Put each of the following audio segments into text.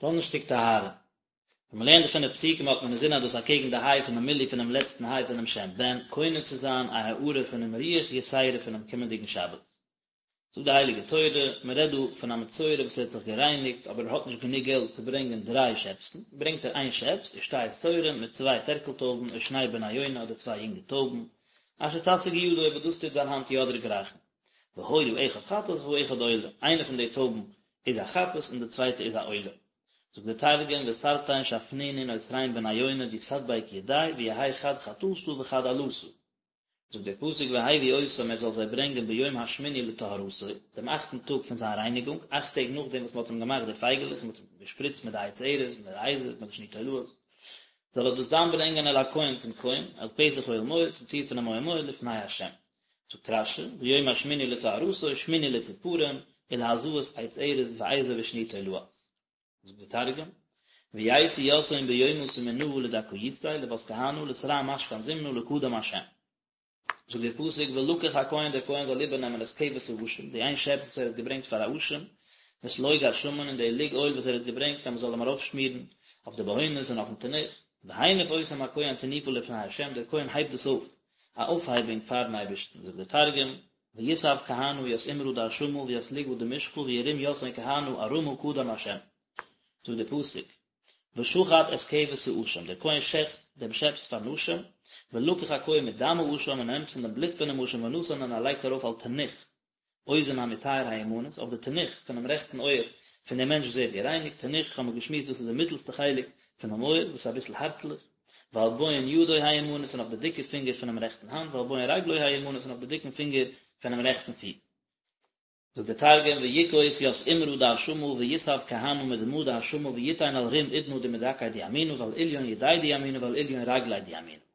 דאנערשטאג טהרה. ווען מ'לערנט די פינף פסוקים האט מען אינזין אז דאס אקעגן די היי פונעם מילוי פונעם לעצטן היי פונעם שם בן, קונה צו זיין א הארה פונעם רוח יתירה פונעם קומענדיגן שבת. זאגט די הייליגע תורה, מען רעדט דא פון א מצורע וואס ער האט זיך גערייניגט אבער ער האט נישט גענוג געלט צו ברענגען דריי שעפסן, ברענגט ער איין שעפס, ושתי תורים מיט צוויי טערקל טויבן, או שני בני יונה אדער צוויי יונגע טויבן, אשר תשיג ידו וואס דאס טוט זיין האנט יא דערגרייכן. והיה האחד חטאת והאחד עולה, איינע פון די טויבן איז א חטאת און די צווייטע איז א עולה. זאגט דער תרגום ותרתין שפנינין או תרין בני יונה די תדביק ידיה ויהי חד חטאתא וחד עלתא. זאגט דער פסוק והביא אותם ער זאל זיי ברענגען ביום השמיני לטהרתו, דעם אכטן טאג פון זיין רייניגונג, אכט טעג נאכדעם וואס מען האט אים געמאכט די פייגעלעך און מען האט אים געשפריצט מיט די עץ ארז מיט די אזוב מיט די שני תולעת, זאל ער דאס דאן ברענגען אל הכהן צום כהן, אל פתח אוהל מועד, צום טיר פונעם אוהל מועד לפני ה'. זאגט רש"י, ביום השמיני לטהרתו, שמיני לציפורים, ולהזאת עץ ארז ואזוב ושני תולעת. זאגט דער תרגום, וייתי יתהון ביומא תמינאה לדכאותיה לבת כהנא לתרע משכן זימנא לקדם השם. זאגט דער פסוק ולקח הכהן דער כהן זאל איבערנעמען את כבש האשם, די איין שעפס וואס ער האט געברענגט פאר א אשם, ואת לוג השמן און די לוג אויל וואס ער האט געברענגט אז מען זאל אים ארויפשמירן אויף די בהונות און אויפן תנוך, והניף אותם הכהן תנופה לפני השם, דער כהן הייבט דאס אויף, א אויפהייבונג פארן אייבערשטן, זאגט דער תרגום, ויסב כהנא ית אימרא דאשמא וית לוגא דמשחא וירים יתהון כהנא ארמא קדם השם. זאגט דער פסוק, ושחט את כבש האשם, דער כהן שעכט דעם שעפס פארן אשם, ולקח הכהן מדם האשם און ער נעמט פון דעם בלוט פונעם אשם ונתן און ער לייגט ארויף על תנוך אוזן המטהר הימנית, אויף די תנוך פונעם רעכטן אויער פון דעם מענטש וואס ווערט גערייניגט, תנוך האבן מיר געשמועסט דאס איז די מיטלסטע חלק פונעם אויער וואס איז אביסל הארטליך, ועל בוהן ידו הימנית און אויף די דיקע פינגער פונעם רעכטן האנט, ועל בוהן רגלו הימנית און אויף די דיקן פינגער פונעם רעכטן פיס. זאגט דער תרגום, ויכוס ית אימרא דאשמא ויסב כהנא מדמא דאשמא ויתין על רום אודנא דמדכי דימינא ועל אליון ידיה דימינא ועל אליון רגליה דימינא.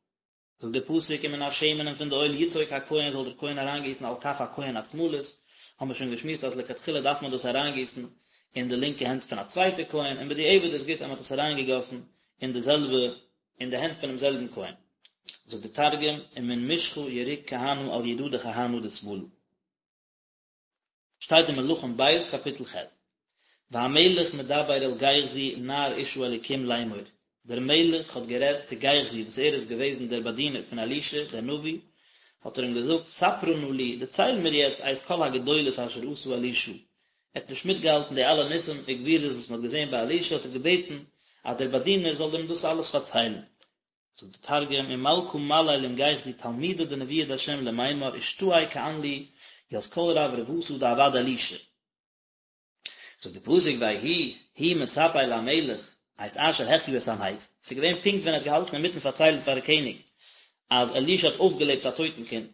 זאגט דער פסוק ומן השמן און פון די אויל יצוק הכהן זאל דער כהן אריינגיסן על כף הכהן השמאלית, האבן מיר שוין געשמועסט אז לכתחילה דארף מען דאס אריינגיסן אין די לינקע הענט פון א צווייטע כהן, און בדיעבד איז גוט אז מען האט עס אריינגעגאסן אין די זעלבע אין די הענט פונעם זעלבן כהן. זאגט דער תרגום ומן משחא יריק כהנא על ידא דכהנא דשמאלא. שטייט אין מלכים ב' קאפיטל ח', והמלך מדבר אל גיחזי נער איש האלקים לאמור, דער מלך האט גערעדט צו גיחזי וואס ער איז געוועזן דער באדינער פון אלישע דער נביא, האט ער אים געזאגט, ספרה נא לי, דערצייל מיר יעצט את כל הגדולות אשר עשה אלישע, ער האט נישט מיטגעהאלטן די אלע ניסים וגבורות וואס מען האט געזען ביי אלישע, האט ער געבעטן אז דער באדינער זאל אים דאס אלעס פארציילן. זאגט דער תרגום, ומלכא מליל עם גיחזי תלמידא דנביא דהשם למימר אשתעי כען לי ית כל רברבתא דעבד אלישע. זאגט דער פסוק ויהי הוא מספר למלך את אשר החיה את המת, ס'איז געווען פונקט ווען ער האט געהאלטן אינמיטן פארציילן פארן קעניג אז אלישע האט אויפגעלעבט א טויטן קינד,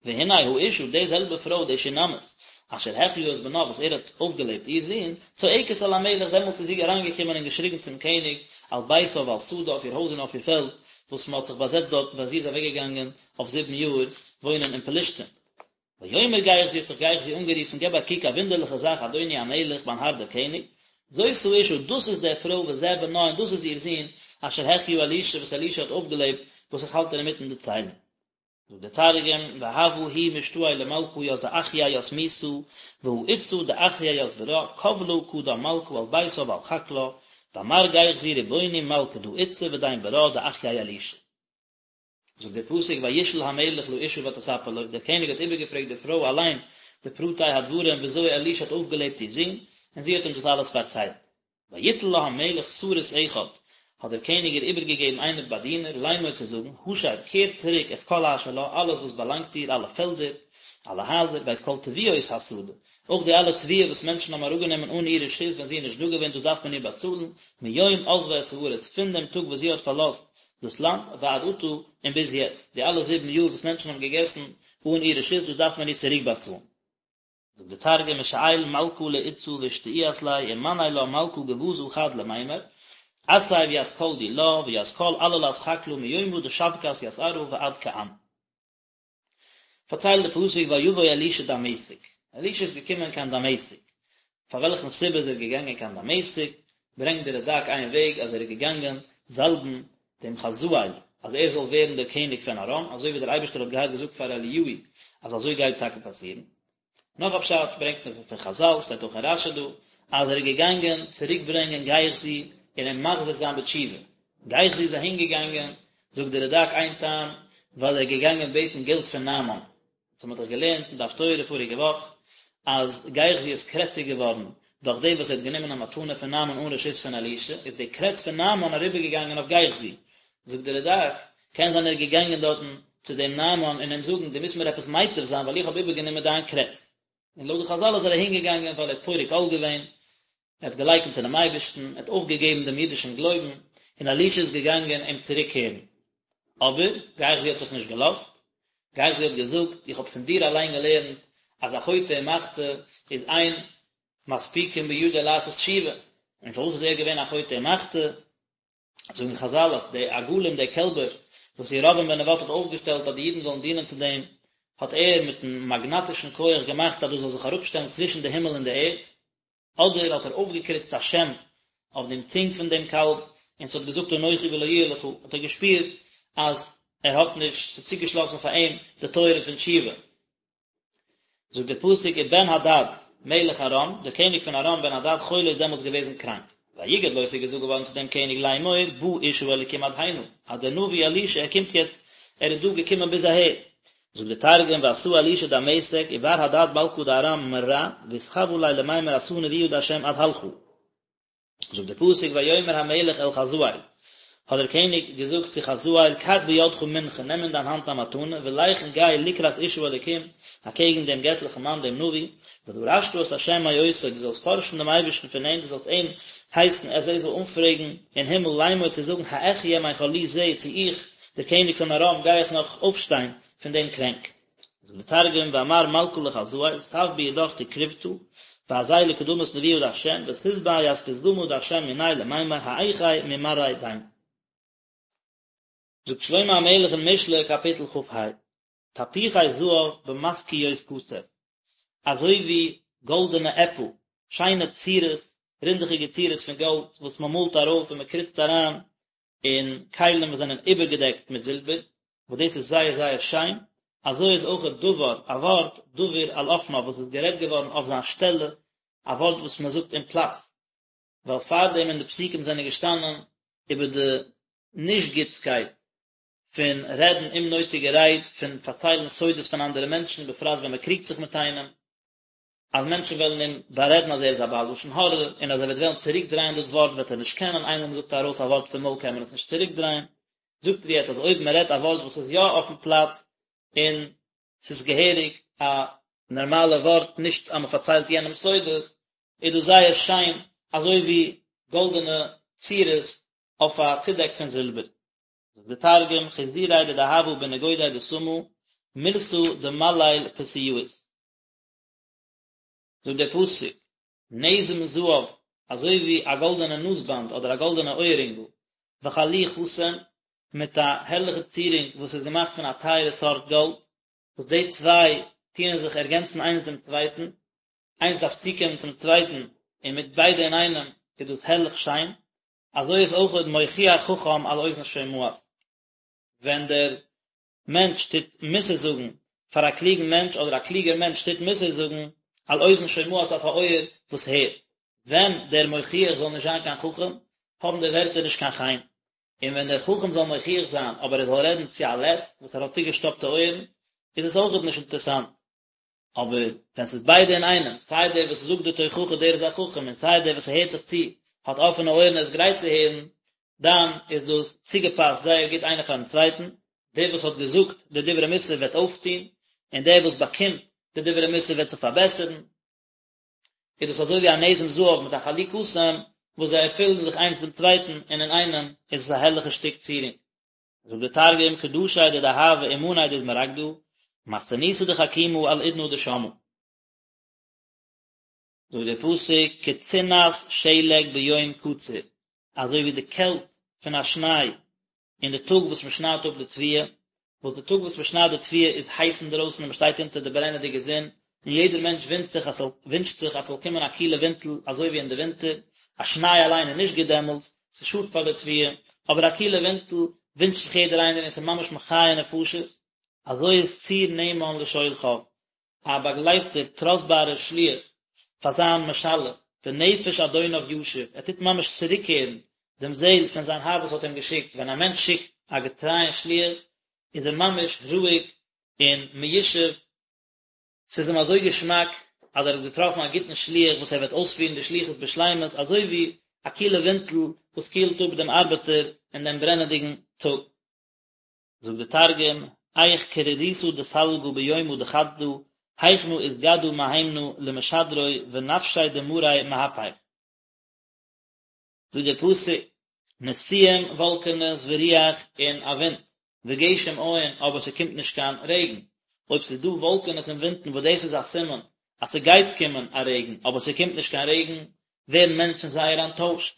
והנה האשה, די זעלבע פרוי, די שונמית, אשר החיה את בנה, וואס ער האט אויפגעלעבט איר זון, צועקת אל המלך, דעמאלטס איז זי אריינגעקומען און געשריגן צום קעניג, על ביתה ועל שדה, אויף איר הויז און אויף איר פעלד, וואס מען האט זיך באזעצט דארטן ווען זי איז אוועקגעגאנגען אויף זיבן יאר וואוינען אין פלשתים. ויאמר גיחזי, האט זיך גיחזי אנגערופן, געב א קוק, א וואונדערליכע זאך, אדוני המלך, מיין האר דער קעניג, זאת האשה, דאס איז די פרוי וזה בנה, און דאס איז איר זון, אשר החיה אלישע, וואס אלישע האט אויפגעלעבט, וואס איך האלט אינמיטן דערציילן. זאגט דער תרגום, והוה הוא משתעי למלכא ית דאחיי ית מיתא, והא איתתא דאחיי ית ברא, קבלא קדם מלכא על ביתה ועל חקלה, ואמר גיחזי רבוני מלכא דא איתתא ודין ברא דאחיי אלישע. זאגט דער פסוק וישאל המלך לאשה ותספר לו, דער קעניג האט איבערגעפרעגט די פרוי אליין די פרטי הדברים וויאזוי אלישע האט אויפגעלעבט איר זון, און זי האט אים דאס אלעס פארציילט. ויתן לה המלך סריס אחד, האט דער קעניג איר איבערגעגעבן איינער באדינער, לאמור צו זאגן, השב, קער צוריק את כל אשר לה, אלעס וואס באלאנגט איר, אלע פעלדער, אלע הייזער, ואת כל תבואות השדה, אויך די אלע תבואה וואס מענטשן האבן אראפגענומען אן איר רשות ווען זי איז נישט דא געווען, דאס דארף מען איר באצאלן, מיום עזבה את הארץ, פון דעם טאג וואס זי האט פארלאזט דאס לאנד, ועד עתה, און ביז יעצט, די אלע זיבן יאר וואס מענטשן האבן געגעסן אן איר רשות, דאס דארף מען איר צוריקבאצאלן. זאגט דער תרגום ושאיל מלכא לאתתא ואשתעיאת ליה ומני לה מלכא גווזא חד למימר אתיב ית כל דילה וית כל עללת חקלא מיומא דשבקת ית ארעא ועד כען. פארציילט די פסוק ויבא אלישע דמשק, אלישע איז געקומען קיין דמשק, פאר וועלכן סיבה איז ער געגאנגען קיין דמשק, ברענגט דער רד"ק איין וועג אז ער איז געגאנגען זאלבן דעם חזאל אז ער זאל ווערן דער קעניג פון ארם, אזוי ווי דער אייבערשטער האט געהאט געזאגט פאר אליהו אז אזוי גייט טאקע פאסירן. נאך א פשט ברענגט מען פון חז"ל, שטייט אויך אין רש"י דא, אז ער איז געגאנגען צוריק ברענגען גיחזי און אים מחזיר זיין בתשובה. גיחזי איז אהין געגאנגען, זאגט דער רד"ק איין טעם, ווייל ער איז געגאנגען בעטן געלט פון נעמן. אונז האמיר דאך געלערנט אין די הפטורה פאריגע וואך אז גיחזי איז קרעציג געווארן דורך דעם וואס ער האט גענומען א מתנה פון נעמן אן רשות פון אלישע, איז די קרעץ פון נעמן אריבערגעגאנגען אויף גיחזי. זאגט דער רד"ק, קען זיין ער איז געגאנגען דארטן צו דעם נעמן און אים זאגן דו מוזט מיר עפעס מייטב זיין ווייל איך האב איבערגענומען דיין קרעץ. און לויט די חז"ל איז ער אהינגעגאנגען ווייל ער האט פורק עול געווען, ער האט געלייקנט אינעם אייבערשטן, ער האט אויפגעגעבן דעם אידישן גלויבן, און אלישע איז געגאנגען אים צוריקקערן. אבער, גיחזי האט זיך נישט געלאזט, גיחזי האט געזאגט, איך האב פון דיר אליין געלערנט אז א חוטא ומחטיא איז אין מספיקין בידו לעשות תשובה, און פארוואס איז ער געווען א חוטא ומחטיא? זאגן חז"ל אז די עגלים די קעלבער וואס ירבעם בן נבט האט אויפגעשטעלט אז די אידן זאלן דינען צו דעם, האט ער מיטן מאגנאטישן כח געמאכט אז דאס זאל זיך אראפשטעלן צווישן די הימל און די ערד, אדער האט ער אויפגעקריצט א שם אויף דעם צונג פון דעם קאלב, און ס'האט געזאגט אנכי ולא יהיה לך, האט ער געשפירט אז ער האט נישט, ס'איז צוגעשלאסן פאר אים די טויערן פון תשובה. זאגט דער פסוק ובן הדד מלך ארם, דער קעניג פון ארם בן הדד חולה איז דעמאלטס געוועזן קראנק. ויגד לו ס'איז געזאגט געווארן צו דעם קעניג לאמור בא איש האלקים עד הנה, אז דער נביא אלישע ער קומט יעצט, ער איז דא געקומען ביז אהער. זאגט דער תרגום ואתא אלישע דמשק ובר הדד מלכא דארם מרע ואתחווא ליה למימר אתא נביא דהשם עד הלכא. זאגט דער פסוק ויאמר המלך אל חזאל, האט דער קעניג געזאגט צו חזאל, קח בידך מנחה, נעם אין דיין האנט א מתנה, ולך און גיי לקראת איש האלקים, אקעגן דעם געטליכן מאן דעם נביא, ודרשת את ה' מאותו, דו זאלסט פארשן דעם אייבערשטן פון אים, דו זאלסט אים הייסן אז ער זאל אנפרעגן אין הימל לאמור צו זאגן האחיה מחלי זה, צו איך, דער קעניג פון ארם, גיי איך נאך אויפשטיין פון דעם קרענק. זאגט דער תרגום ואמר מלכא לחזאל תב בידך תקרובתא ואזיל לקדמות נביא דהשם ותתבע ית פתגמא דהשם מניה למימר האחי ממרעיה דין. זאגט שלמה המלך אין משלי קאפיטל כ"ה, תפוחי זהב במשכיות כסף, אזוי ווי גאלדענע עפל, שיינע צורות, רינדעכיגע צורות פון גאלד וואס מען מאלט ארויף און מען קריצט אריין אין כלים וואס זענען איבערגעדעקט מיט זילבער, וואס דאס איז זייער זייער שיין, אזוי איז אויך דבר, א ווארט, דבור על אופניו, וואס איז גערעדט געווארן אויף זיין שטעלע, א ווארט וואס מען זאגט אין פלאץ, ווייל פארדעם אין די פסוקים זענען געשטאנען איבער די נישט גוטסקייט פון רעדן אומנויטיגע רייד, פון פארציילן סודות פון אנדערע מענטשן, בפרט ווען מען קריגט זיך מיט איינעם. אז מענטשן וועלן אים בארעדן אז ער איז א בעל לשון הרע, און אז ער וועט וועלן צוריקדרייען דאס ווארט וועט ער נישט קענען, איינמאל מען זאגט ארויס א ווארט פון מויל קען מען עס נישט צוריקדרייען. זאגט ער יעצט אז אויב מען רעדט א ווארט וואס איז יא אויפן פלאץ, און ס'איז געהעריג א נארמאלע ווארט, נישט אז מען פארציילט יענעם סודות, איז דאס זייער שיין, אזוי ווי גאלדענע צורות אויף א צודעק פון זילבער. זאגט דער תרגום, חיזורי דדהבא בנגודי דסמא, מילתא דמליל פסיאית. זאגט דער פסוק, נזם זהב, אזוי ווי א גאלדענע נאזבאנד אדער א גאלדענע אויערינגל, וחלי חסים, מיט א הערליכע צירונג וואס איז געמאכט פון א טייערע סארט גאלד, וואס די צוויי טוען זיך ערגענצן איינס דעם צווייטן, איינס דארף צוקומען צום צווייטן, און מיט ביידע אינאיינעם איז דאס הערליך שיין, אזוי איז אויכעט מוכיח חכם על אוזן שומעת. ווען דער מענטש טוט מוסר זאגן פאר א קלוגן מענטש אדער א קלוגער מענטש טוט מוסר זאגן על אוזן שומעת אויף א אויער וואס הערט. ווען דער מוכיח זאל נישט זיין קיין חכם, האבן די ווערטער נישט קיין חן. און ווען דער חכם זאל מוכיח זיין אבער ער זאל רעדן צו א לץ וואס ער האט צוגעשטאפטע אויערן, איז עס אויכעט נישט אינטערסאנט. אבער ווען ס'איז ביידע אינאיינעם, סיי דער וואס זאגט די תוכחה דער איז א חכם און סיי דער וואס הערט זיך צו האט אפענע אויערן און איז גרייט צו הערן, דאן איז דאס צוגעפאסט זייער גוט איינער פארן צווייטן, דער וואס האט געזאגט די דברי מוסר וועט אויפטון, און דער וואס באקומט די דברי מוסר וועט זיך פארבעסערן. איז דאס אזוי ווי א נזם זהב מיט א חלי קסם וואס זיי ערפילן זיך איינס דעם צווייטן און אינאיינעם איז עס א הערליכע שטיק צירונג. זאגט דער תרגום, קדשי דדהבא ומני דאזמרגדא, מחסניתא דחכימא על אודנא דשמעא. זאגט דער פסוק, כצנת שלג ביום קציר, אזוי ווי די קעלט פון א שניי אין די טאג וואס מען שניידט אפ די תבואה, וואס די טאג וואס מען שניידט די תבואה איז הייס אינדרויסן און מען שטייט אונטער די ברענעדיגע זון, און יעדער מענטש ווינטשט זיך אז ס'זאל ווינטשט זיך אז ס'זאל קומען א קילע ווינטל אזוי ווי אין די ווינטער, א שניי אליין איז נישט גוט דעמאלטס, ס'שאדט פאר די תבואה, אבער א קילע ווינטל ווינטשט זיך יעדער איינער און ס'איז ממש מחיה נפשות. אזוי איז צור נאמן לשולחיו, א באגלייבטער טראסטבארער שליח פאר זיין משלח. ונפש אדוניו ישיב, ער טוט ממש צוריקקערן דעם זעהל פון זיין האר וואס האט אים געשיקט, ווען א מענטש שיקט א געטרייען שליח איז ער ממש רואיג און מיושב, ס'איז אים אזוי געשמאק אז ער האט געטראפן א גוטן שליח וואס ער וועט אויספירן די שליחות בשלימות, אזוי ווי א קילע ווינטל וואס קילט אפ דעם ארבעטער אין דעם ברענעדיגן טאג. זאגט די תרגום, היך קרירותא דסלגא ביומא דחסדא, היכנא אתגדא מהימנא למשדרוי ונפשיה דמריה מהפך. זאגט דער פסוק, נשיאים וואלקענעס ורוח און א ווינט, וגשם אין אבער ס'קומט נישט קיין רעגן, אויב ס'איז דא וואלקענעס און ווינטן וואס דאס איז א סימן אז ס'גייט קומען א רעגן אבער ס'קומט נישט קיין רעגן, ווערן מענטשן זייער אנטוישט.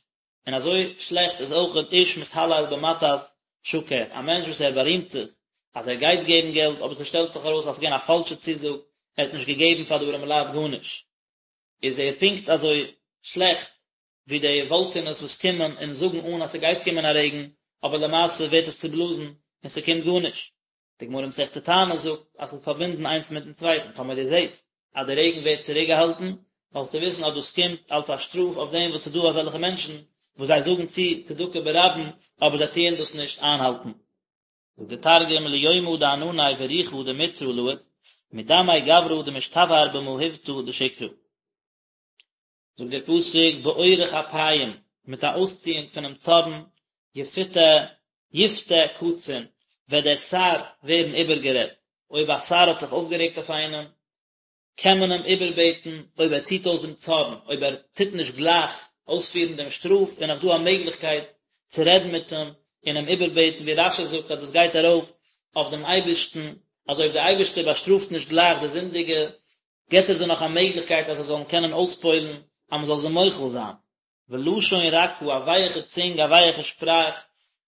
און אזוי שלעכט איז אויכעט איש מתהלל במתת שקר, א מענטש וואס ער בארימט זיך אז ער גייט געבן געלט אבער ס'שטעלט זיך ארויס אז ס'איז געווען א פאלשע צוזאג, ער האט נישט געגעבן פאר די ארעמעלייט גארנישט, איז ער פונקט אזוי שלעכט ווי די וואלקענעס וואס קומען און זאגן אן אז ס'גייט קומען א רעגן, אבער למעשה ווערט עס צובלאזן און ס'קומט גארנישט. די גמרא מסכת תענית זאגט אז ס'איז פארבינדן איינס מיטן צווייטן, טאמער דו זעסט אז די רעגן ווערט צוריקגעהאלטן, זאלסטו וויסן אז דאס קומט אלס א שטראף אויף דעם וואס ס'איז דא אזעלכע מענטשן וואס זיי זאגן צו צדקה ברבים אבער זיי טוען דאס נישט איינהאלטן. זאגט די תרגום ליומא דענני ורוחא דמטרא לית, מדמי גברא דמשתבהר במהיבתא דשקרא. זאגט דער פסוק באורך אפים, מיט א אויסציאונג פונעם צארן, יפותה, יפתה קצין, וועט דער שר ווערן איבערגערעדט, אויב א שר האט זיך אויפגערעגט אויף איינעם, קען מען אים איבערבעטן אויב ער ציט אויס דעם צארן, אויב ער טוט נישט גלייך אויספירן דעם שטראף, איז נאך דא א מעגליכקייט צו רעדן מיט אים און אים איבערבעטן, ווי רש"י זאגט אז דאס גייט ארויף אויף דעם אייבערשטן, אז אויב דער אייבערשטער באשטראפט נישט גלייך די זינדיגע, געבט ער זיי נאך א מעגליכקייט אז זיי זאלן קענען אויספועל'ן אז מען זאל זיי מוחל זיין. ולשון רכה, א ווייעכע צונג, א ווייעכע שפראך,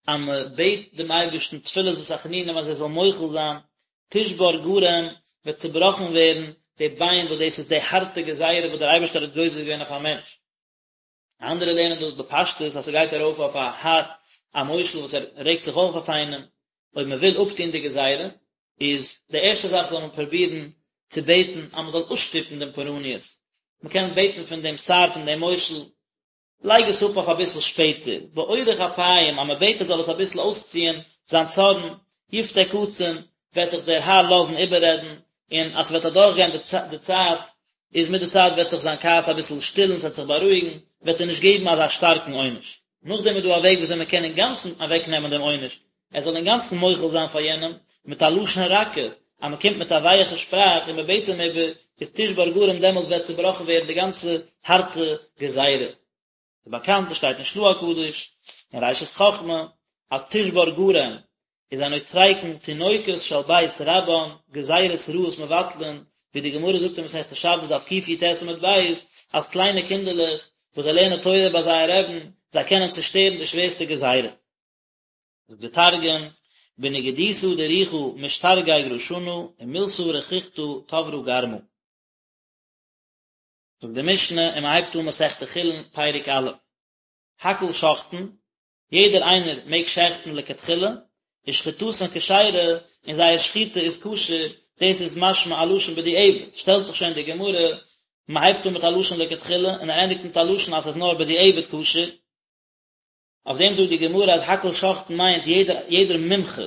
אז מען בעט דעם אייבערשטן תפילות ותחנונים אז ער זאל מוחל זיין, תשבר גרם, וועט צובראכן ווערן די ביין וואס דאס איז די הארטע גזירה וואס דער אייבערשטער האט גוזר געווען אויף א מענטש. אנדערע לערנען דאס בפשטות אז ס'גייט ארויף אויף א האר, א מושל וואס ער רעגט זיך אויף אויף איינעם, אויב מען וויל אפטון די גזירה, איז די ערשטע זאך זאל מען פרובירן צו בעטן אז מען זאל אפשטופן דעם פורעניות, מען קען בעטן פון דעם שר פון דעם מושל, לייג עס אפ אויף אביסל שפעטער, באורך אפיים, אז מען בעט ער זאל עס אביסל אויסציען זיין צארן, יפתה קצין, וועט זיך דער האר לאזן איבעררעדן, און אז ס'וועט אדורכגיין די צייט, איז מיט די צייט וועט זיך זיין כעס אביסל שטילן, ס'וועט זיך בארואיגן, וועט ער נישט געבן אזא שטארקן עונש. נאכדעם איז דא א וועג וויאזוי מען קען אינגאנצן אוועקנעמען דעם עונש, ער זאל אינגאנצן מוחל זיין פאר יענעם, מיט א לשון רכה, אז מען קומט מיט א ווייעכע שפראך און מען בעט אים איבער, איז תשבר גרם דעמאלטס וועט צובראכן ווערן די גאנצע הארטע גזירה. ס'איז באקאנט, עס שטייט אין של"ה הקדוש, אין ראשית חכמה, אז תשבר גרם איז א נוטריקון תינוקות של בית רבן, גזירות רעות מבטלין, ווי די גמרא זאגט אין מסכת שבת דף קי"ט עמוד ב', אז קליינע קינדערלעך וואס זיי לערנען תורה ביי זייער רעבן, זיי קענען צושטערן די שווערסטע גזירות. זאגט די תרגום, בנגידותא דרוחא משתרגג רשנא ומילתא רכיכתא תברא גרמא. זאגט די משנה און מען הייבט אן מסכת חולין פרק א', הכל שוחטין, יעדער איינער מעג שעכטן לכתחילה, ושחיטתן כשרה, און זייער שחיטה איז כשר, דאס איז משמע א לשון בדיעבד, שטעלט זיך שוין די גמרא, מען הייבט אן מיט א לשון לכתחילה און ער ענדיגט מיט א לשון אז ס'איז נאר בדיעבד כשר, אויף דעם זאגט די גמרא אז הכל שוחטין מיינט יעדער יעדער מומחה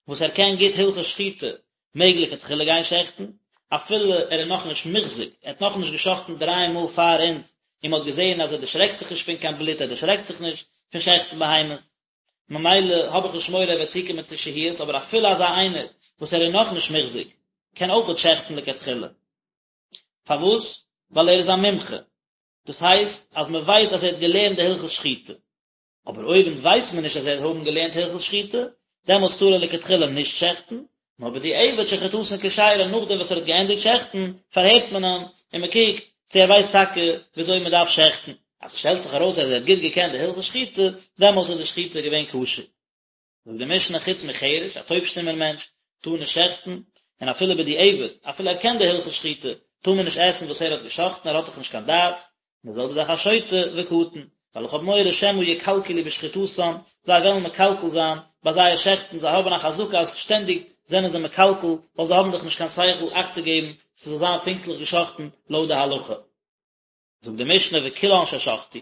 וואס ער קען גוט הלכות שחיטה מעג לכתחילה גיין שעכטן, אפילו ער איז נאכנישט מוחזק, ער האט נאכנישט געשאכטן דריי מאל פאר אונז און מען האט געזען אז ער דערשרעקט זיך נישט פון קיין בלוט, ער דערשרעקט זיך נישט פון שעכטן בהמות, ממילא האב איך נישט מורא ער וועט צוקומען צו שהיות, אבער אפילו אזא איינער וואס ער איז נאכנישט מוחזק קען אויכעט שעכטן לכתחילה. פארוואס? ווייל ער איז א מומחה, דאס הייסט אז מען ווייסט אז ער האט געלערנט די הלכות שחיטה. אבער אויב אונז ווייסט מען נישט אז ער האט האבן געלערנט הלכות שחיטה, דעמאלטס טאר ער לכתחילה נישט שעכטן, נאר בדיעבד שחיטתן כשרה נאכדעם וואס ער האט געענדיגט שעכטן, פארהערט מען אים און מען קוקט צו ער ווייסט טאקע וויאזוי מען דארף שעכטן. אז ס'שטעלט זיך ארויס אז ער האט גוט געקענט די הלכות שחיטה, דעמאלטס איז די שחיטה געווען כשר. זאגט די משנה חוץ מחרש, א טויב-שטומער מענטש טאר נישט שעכטן, און אפילו בדיעבד, אפילו ער קען די הלכות שחיטה, טאר מען נישט עסן וואס ער האט געשאכטן, ער האט דאך נישט קיין דעת, און די זעלבע זאך א שוטה וקטן, ווייל איך האב מורא שמא יקלקלו בשחיטתן, זיי וועלן מקלקל זיין ביי זייער שעכטן, זיי האבן א חזקה אז שטענדיג זענען זיי מקלקל, ווייל זיי האבן דאך נישט קיין שכל אכט צו געבן ס'זאל זיין פונקטליך געשאכטן לויט די הלכה. זאגט די משנה וכולן ששחטו,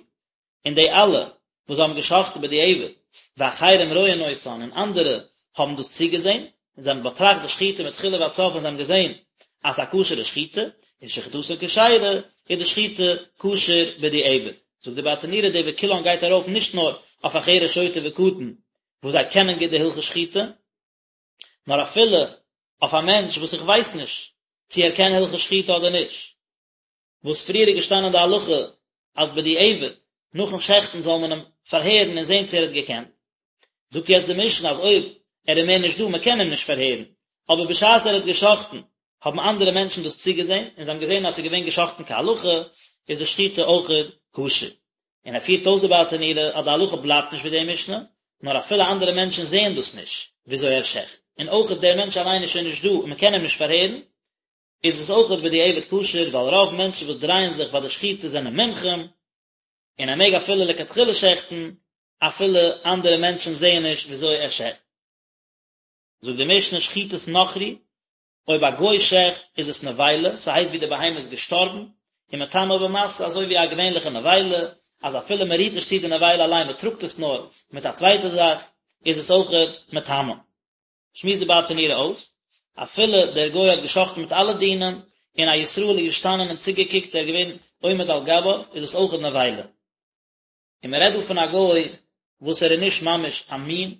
און די אלע וואס האבן געשחט'ן בדיעבד, ואחרים רואין אותן, און אנדערע האבן דאס צוגעזען, און זיי האבן באטראכט די שחיטה מתחילה ועד סוף און זיי האבן געזען אז ס'איז א כשר'ע שחיטה, איז שחיטתן כשרה, איז די שחיטה כשר בדיעבד. זאגט די ברטנורא די וכולן גייט ארויף נישט נאר אויף א חרש שוטה וקטן וואס זיי קענען גוט די הלכות שחיטה, נאר אפילו אויף א מענטש וואס איך ווייס נישט צו ער קען הלכות שחיטה אדער נישט. וואס פריער איז געשטאנען די הלכה אז בדיעבד נאכן שעכטן זאל מען אים פארהערן און זען צו ער האט געקענט, זאגט יעצט די משנה אז אויב ער איז מער נישט דא מען קען אים נישט פארהערן, אבער בשעת ער האט געשאכטן האבן אנדערע מענטשן דאס צוגעזען און זיי האבן געזען אז עס איז געווען געשאכטן כהלכה, איז די שחיטה אויכעט כשר. און ער פירט אויס די ברטנורא אז די הלכה בלייבט נישט ווי די משנה, נאר אפילו אנדערע מענטשן זעען דאס נישט וויאזוי ער שעכט, און אויכעט דער מענטש אליין איז שוין נישט דא און מען קען אים נישט פארהערן, איז עס אויכעט בדיעבד כשר ווייל רוב מענטשן וואס דרייען זיך ביי די שחיטה זענען מומחים, און ער מעג אפילו לכתחילה שעכטן אפילו אנדערע מענטשן זעען נישט וויאזוי ער שעכט. זאגט די משנה שחיטת נכרי, אויב א גוי שעכט איז עס נבילה, ס'הייסט ווי די בהמה איז געשטארבן, און מטמא במשא אזוי ווי א געווענליכע נבילה, אז אפילו מען רירט נישט צו די נבילה אליין מען טראגט עס נאר מיט א צווייטע זאך, איז עס אויכעט מטמא. שמועסט די ברטנורא אויס, אפילו דער גוי האט גע'שחט'ן מיט אלע דינים, און א ישראל איז געשטאנען און צוגעקוקט ער איז געווען עומד על גביו, איז עס אויכעט נבילה. און מען רעדט דא פון א גוי וואס ער איז נישט ממש א מין,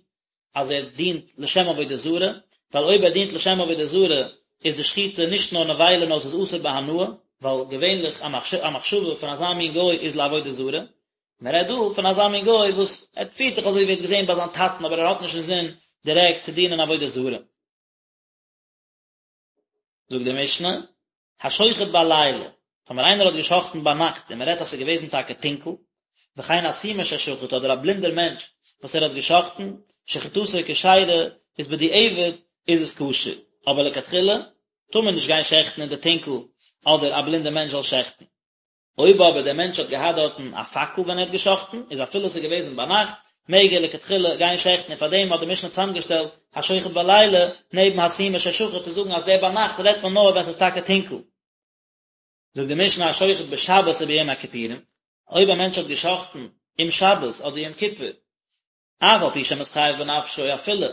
אז ער דינט לשם עבודה זרה, ווייל אויב ער דינט לשם עבודה זרה איז די שחיטה נישט נאר נבילה נאר עס איז אסור בהנאה, ווייל געווענליך א מחשבה פון אזא מין גוי איז לעבודה זרה, מען רעדט דא פון אזא מין גוי וואס ער פירט זיך אזוי ווי ער האט געזען ביי זיין טאטן אבער ער האט נישט אינזין דירעקט צו דינען עבודה זרה. זאגט די משנה, השוחט בלילה, טאמער איינער האט געשחט'ן ביינאכט און מען רעדט אז ס'איז געוועזן טאקע טונקל, וכן הסומא ששחט אדער א בלינדער מענטש וואס ער האט געשחט'ן, שחיטתו כשרה, איז בדיעבד איז עס כשר, אבער לכתחילה טאר מען נישט גיין שעכטן אין די טונקל אדער א בלינדער מענטש זאל שעכטן. אויב אבער דער מענטש האט געהאט דארטן א פאקל ווען ער האט געשאכטן, איז אפילו עס איז געוועזן ביינאכט, מעג ער לכתחילה גיין שעכטן און פארדעם האט די משנה צוזאמגעשטעלט השוחט בלילה נעבן הסומא ששחט צו זאגן אז דער ביינאכט רעדט מען נאר ווען עס איז טאקע טונקל. זאגט די משנה השוחט בשבת וביום הכיפורים, אויב א מענטש האט געשאכטן אום שבת אדער יום כיפור, אף על פי שמתחייב בנפשו אפילו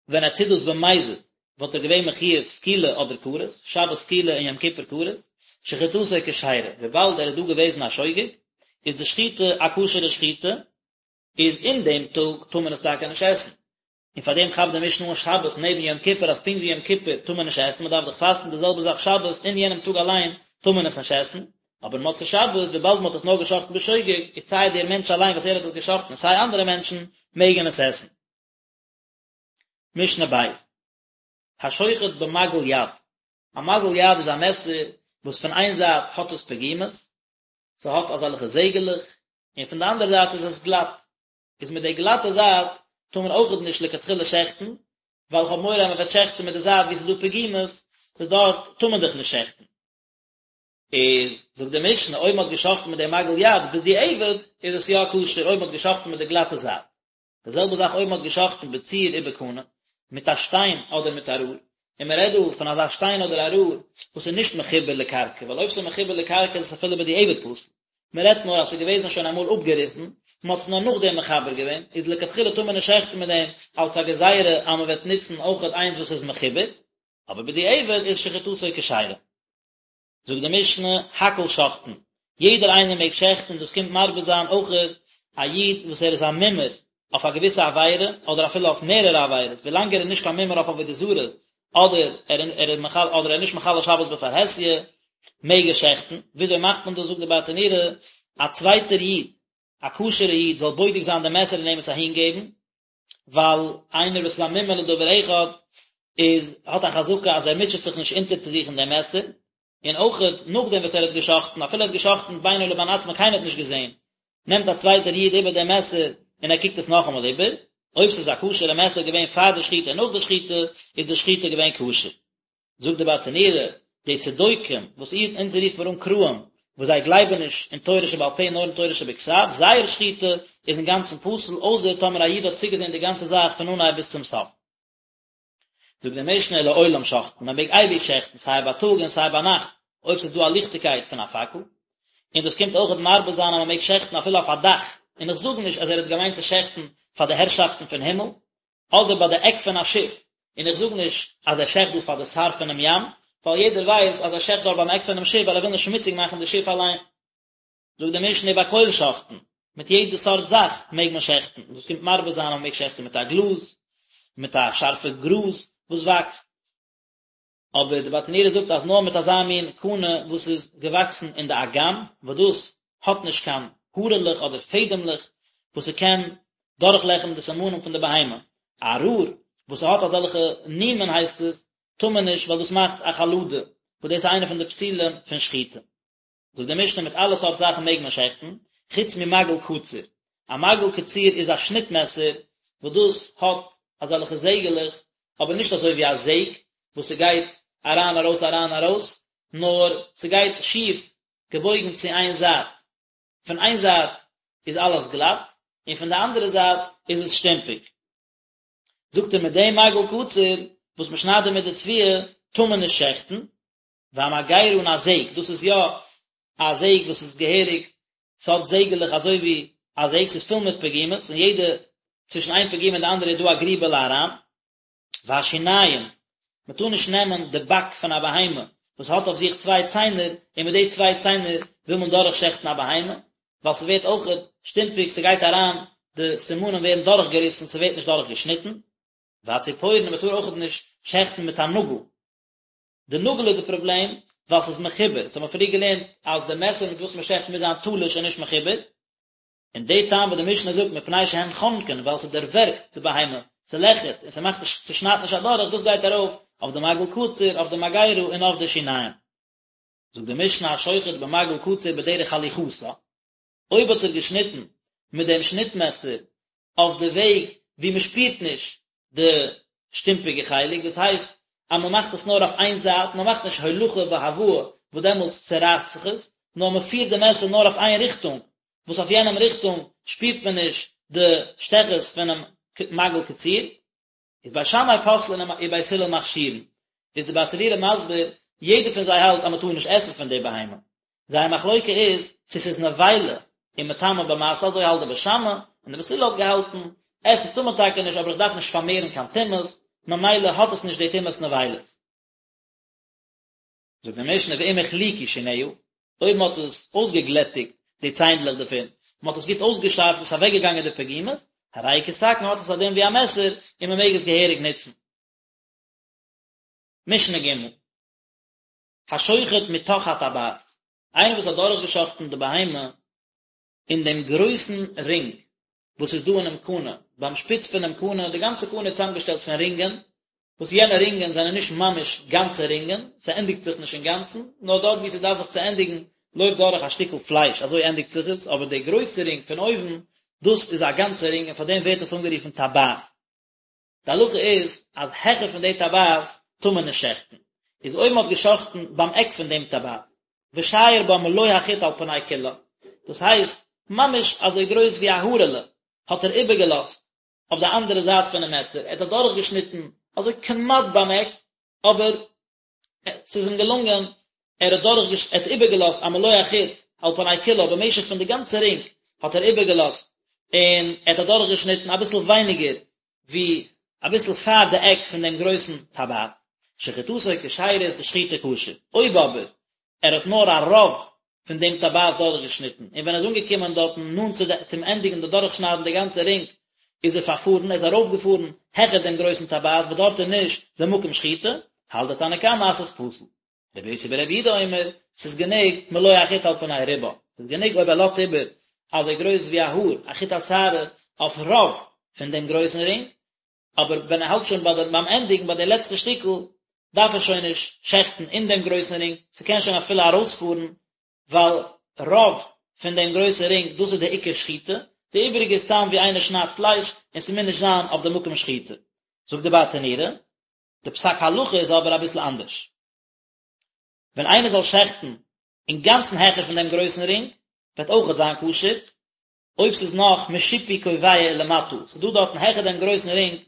ווען ער טוט דאס במזיד וואלט ער געווען מחויב סקילה אדער כרת, שבת סקילה און יום כיפור כרת, שחיטתו כשרה, וויבאלד ער איז דא געוועזן א שוגג, איז די שחיטה א כשר'ע שחיטה, איז אין דעם טאג טאר מען עס טאקע נישט עסן. און פאר דעם כאפט די משנה אן שבת נעבן יום כיפור אז פונקט ווי יום כיפור טאר מען נישט עסן, מען דארף דאך פאסטן די זעלבע זאך שבת אין יענעם טאג אליין טאר מען עס נישט עסן, אבער מוצאי שבת וויבאלד מען האט עס נאר געשחט'ן בשוגג, איז סיי דער מענטש אליין וואס ער האט עס געשחט'ן און סיי אנדערע מענטשן מעגן עס עסן. משנה ב', השוחט במגל יד, א מגל יד איז א מעסער וואס פון איין זייט האט עס פגימות, ס'האט אזעלכע זעגעלעך, און פון די אנדערע זייט איז עס גלאט, איז מיט די גלאטע זייט טאר מען אויכעט נישט לכתחילה שעכטן, ווייל כ'האב מורא אז מ'וועט שעכטן מיט די זייט וואו ס'איז דא פגימות, וואס דארט טאר מען דאך נישט שעכטן. איז זאגט די משנה אויב מ'האט געשאכטן מיט די מגל יד בדיעבד איז עס יא כשר אויב מ'האט געשאכטן מיט די גלאטע זייט. די זעלבע זאך אויב מ'האט געשאכטן בצור ובקנה, מיט א שטיין אדער מיט א רער, און מ'רעדט דא פון אזא שטיין אדער א רער וואס איז נישט מחובר לקרקע, ווייל אויב ס'איז מחובר לקרקע איז עס אפילו בדיעבד פסול, מ'רעדט נאר אז ס'איז געוועזן שוין אמאל אפגעריסן, מ'האט עס נאר נאכדעם מחבר געווען, איז לכתחילה טאר מען נישט שעכטן מיט דעם אלס א גזירה אז מ'וועט נוצן אויכעט איינס וואס איז מחובר, אבער בדיעבד איז שחיטתו כשרה. זאגט די משנה, הכל שוחטין, יעדער איינער מעג שעכטן, דאס קומט מרבה זיין אויכעט א איד וואס ער איז א מומר אויף א געוויסע עבירה, אדער אפילו אויף מערערע עבירות, ווילאנג ער איז נישט קיין מומר אויף עבודה זרה, אדער ער איז מחלל אדער ער איז נישט מחלל שבת בפרהסיא, מעג ער שעכטן, וויאזוי מאכט מען דאס זאגט די ברטנורא, א צווייטער איד, א כשר'ע איד זאל בודק זיין די מעסער און אים עס אהינגעבן, ווייל איינער וואס איז א מומר לדבר אחד איז האט א חזקה אז ער מוטשעט זיך נישט אונטערצוזוכן דעם מעסער, און אויכעט נאכדעם וואס ער האט גע'שחט'ן, אפילו ער האט גע'שחט'ן בינו לבין עצמו קיינער האט נישט געזען, נעמט א צווייטער איד איבער דעם מעסער און ער קוקט עס נאכאמאל איבער, אויב ס'איז א כשר'ע מעסער געווען פאר די שחיטה און נאך די שחיטה, איז די שחיטה געווען כשר. זאגט די ברטנורא, די צדוקים, וואס אונז רופט מיר אן קראים, וואס זיי גלייבן נישט אין תורה שבעל פה נאר אין תורה שבכתב, זייער שחיטה איז אינגאנצן פסול, אויסער טאמער א איד האט צוגעזען די גאנצע זאך פון אנהייב ביז צום סוף. זאגט די משנה לעולם שוחטין, מען מעג אייביג שעכטן סיי בייטאג און סיי ביינאכט, אויב ס'איז דא א ליכטיגקייט פון א פאקל. און דאס קומט אויכעט מרבה זיין אז מען מעג שעכטן אפילו אויף א דאך, און איך זאג נישט אז ער האט געמיינט צו שעכטן פאר די הערשאפטן פון הימל, אדער ביי די עק פון א שיף, און איך זאג נישט אז ער שעכט דא פאר די שר פונעם ים, ווייל יעדער ווייסט אז ער שעכט דארט ביים עק פונעם שיף ווייל ער וויל נישט שמוציג מאכן די שיף אליין. זאגט די משנה ובכל שוחטין, מיט יעדע סארט זאך מעג מען שעכטן, דאס קומט מרבה זיין אז מען מעג שעכטן מיט א גלאז, מיט א שארפע גראז וואס וואקסט, אבער די ברטנורא זאגט אז נאר מיט אזא מין קנה וואס איז געוואקסן אין די אגם, וואס דאס האט נישט קיין הארעלעך אדער פעדעמלעך וואס ס'קען דורכלעכערן די סימנים פון די בהמה, א רור וואס ס'האט אזעלכע נימין הייסט עס, טאר מען נישט ווייל דאס מאכט א חלדה, וואס דאס איז איינע פון די פסולים פון שחיטה. זאגט די משנה מיט אלע סארט זאכן מעג מען שעכטן, חוץ ממגל קציר, א מגל קציר איז א שניט מעסער וואס דאס האט אזעלכע זעגעלעך, אבער נישט אזוי ווי א זעג וואס ס'גייט אריין ארויס אריין ארויס, נאר ס'גייט שיף געבויגן צו איין זייט, פון איין זייט איז אלעס גלאט, און פון די אנדערע זייט איז עס שטומפיג. זאגט ער מיט דעם מגל קציר וואס מ'שניידט דערמיט די תבואה טאר מען נישט שעכטן, והמגירה און א זעג, דאס איז יא א זעג וואס איז געהעריג, ס'האט זעגעלעך אזוי ווי א זעג, ס'איז פול מיט פגימות, און יעדע, צווישן איין פגימה און די אנדערע איז דא א גריבעלע אריין. והשיניים, מ'טאר נישט נעמען די באק פון א בהמה וואס האט אויף זיך צוויי ציינער, און מיט די צוויי ציינער וויל מען דורכשעכטן א בהמה, ווייל ס'ווערט אויכעט שטומפיג, ס'גייט אריין, די סימנים ווערן דורכגעריסן, ס'ווערט נישט דורכגעשניטן. והציפורן, מ'טאר אויכעט נישט שעכטן מיט א נאגל. די נאגל איז די פראבלעם ווייל ס'איז מחובר, אונז האבן פריער געלערנט אז די מעסער מיט וואס מ'שעכט מוז זיין תלוש און נישט מחובר, און די טעם וואס די משנה זאגט מפני שהן חונקין ווייל ס'דערווערגט די בהמה, ס'לעכערט און ס'מאכט נישט ס'שניידט נישט אדורך, דאס גייט ארויף אויף די מגל קציר, אויף די מגירה און אויף די שיניים. זאגט די משנה השוחט במגל קציר בדרך הליכתה, אויב האט ער געשניטן מיט דעם שניט מעסער אויף די וועג ווי מען שפירט נישט די שטומפיגע חלק, דאס הייסט אז מען מאכט עס נאר אויף איין זייט, מען מאכט נישט הולכה והבאה וואס דעמאלטס צורייסט זיך עס, נאר מען פירט די מעסער נאר אויף איין ריכטונג, וואס אויף יענעם ריכטונג שפירט מען נישט די שטעכעס פונעם מגל קציר. איז בית שמאי פוסלין ובית הלל מכשירין, איז די ברטנורא מסביר, יעדער פון זיי האלט אז מען טאר נישט עסן פון די בהמה, זייער מחלוקה איז צו ס'איז נבילה און מטמא במשא, אזוי האלט די בית שמאי, און די בית הלל האט געהאלטן, עסן טאר מען טאקע נישט אבער איך דארף נישט פארמערן קיין טומאות, ממילא האט עס נישט די טומאת נבילות. זאגט די משנה ואם החליקו שיניה, אויב מען האט עס אויסגעגלעטיגט די ציינדלעך דערפון, מען האט עס גוט אויסגעשארפט איז אוועקגעגאנגען די פגימות, הרי כסכין האט עס א דין ווי א מעסער און מען מעג עס געהעריג נוצן. משנה ג' השוחט מתוך הטבעת, איינער וואס האט דורכגעשאכטן די בהמה אין דעם גרויסן רינג וואס איז דא אינעם קנה, ביים שפיץ פונעם קנה, די גאנצע קנה איז צוזאמגעשטעלט פון רינגען, וואס יענע רינגען זענען נישט ממש גאנצע רינגען, ס'ענדיגט זיך נישט אינגאנצן, נאר דארט וואו ס'דארף זיך צו ענדיגן לויפט דורך א שטיקל פלייש, אזוי ענדיגט זיך עס, אבער די גרויסע רינג פון אויבן, דאס איז א גאנצע רינג און פאר דעם ווערט עס אנגערופן טבעת. די הלכה איז אז העכער פון די טבעת טאר מען נישט שעכטן, איז אויב מען האט געשאכטן ביים עק פון דעם טבעת, ושייר בה מלא החוט על פני כולה, דאס הייסט ממש אזוי גרויס ווי א הארעלע האט ער איבערגעלאזט אויף די אנדערע זייט פונעם מעסער, ער האט אדורכגעשניטן אזוי כמעט ביים עק, אבער ס'איז אים געלונגען, ער האט דורך ער האט איבערגעלאזט א מלא החוט על פני כולה, במשך פון די גאנצע רינג האט ער איבערגעלאזט, און ער האט אדורכגעשניטן אביסל ווייניגער ווי אביסל פאר די עק פון דעם גרויסן טבעת, שחיטתו כשרה איז די שחיטה כשר, אויב אבער ער האט נאר א רוב פון דעם טבעת דורכגעשניטן, און ווען ער איז אנגעקומען דארטן נאנט צו די צום ענדיגן די דורכשניידן די גאנצע רינג, איז ער פארפארן, ער איז ארויפגעפארן העכער דעם גרויסן טבעת וואס דארט איז נישט די מקום שחיטה, האלט די תנא קמא אז ס'איז פסול. רבי יוסי ברבי יהודה אומר, ס'איז גענוג מלא החוט על פני רובה, ס'איז גענוג אויב ער לאזט איבער אזוי גרויס ווי א האר, א חוט השערה, אויף רוב פון דעם גרויסן רינג, אבער ווען ער האלט שוין ביי די ביים ענדיגן ביי די לעצטע שטיקל, דארף ער שוין נישט שעכטן אין דעם גרויסן רינג, ס'קען שוין אפילו ארויספארן, ווייל רוב פון דעם גרויסן רינג דאס איז די עיקר שחיטה, די איבעריגע איז סתם ווי איינער שניידט פלייש און ס'מוז נישט זיין אויף די מקום שחיטה. זאגט די ברטנורא, די פסק הלכה איז אבער אביסל אנדערש. ווען איינער זאל שעכטן אינגאנצן העכער פון דעם גרויסן רינג, וועט אויכעט זיין כשר, אויב ס'איז נאך משיפוי קובע ולמטה, ס'איז דא דארטן העכער דעם גרויסן רינג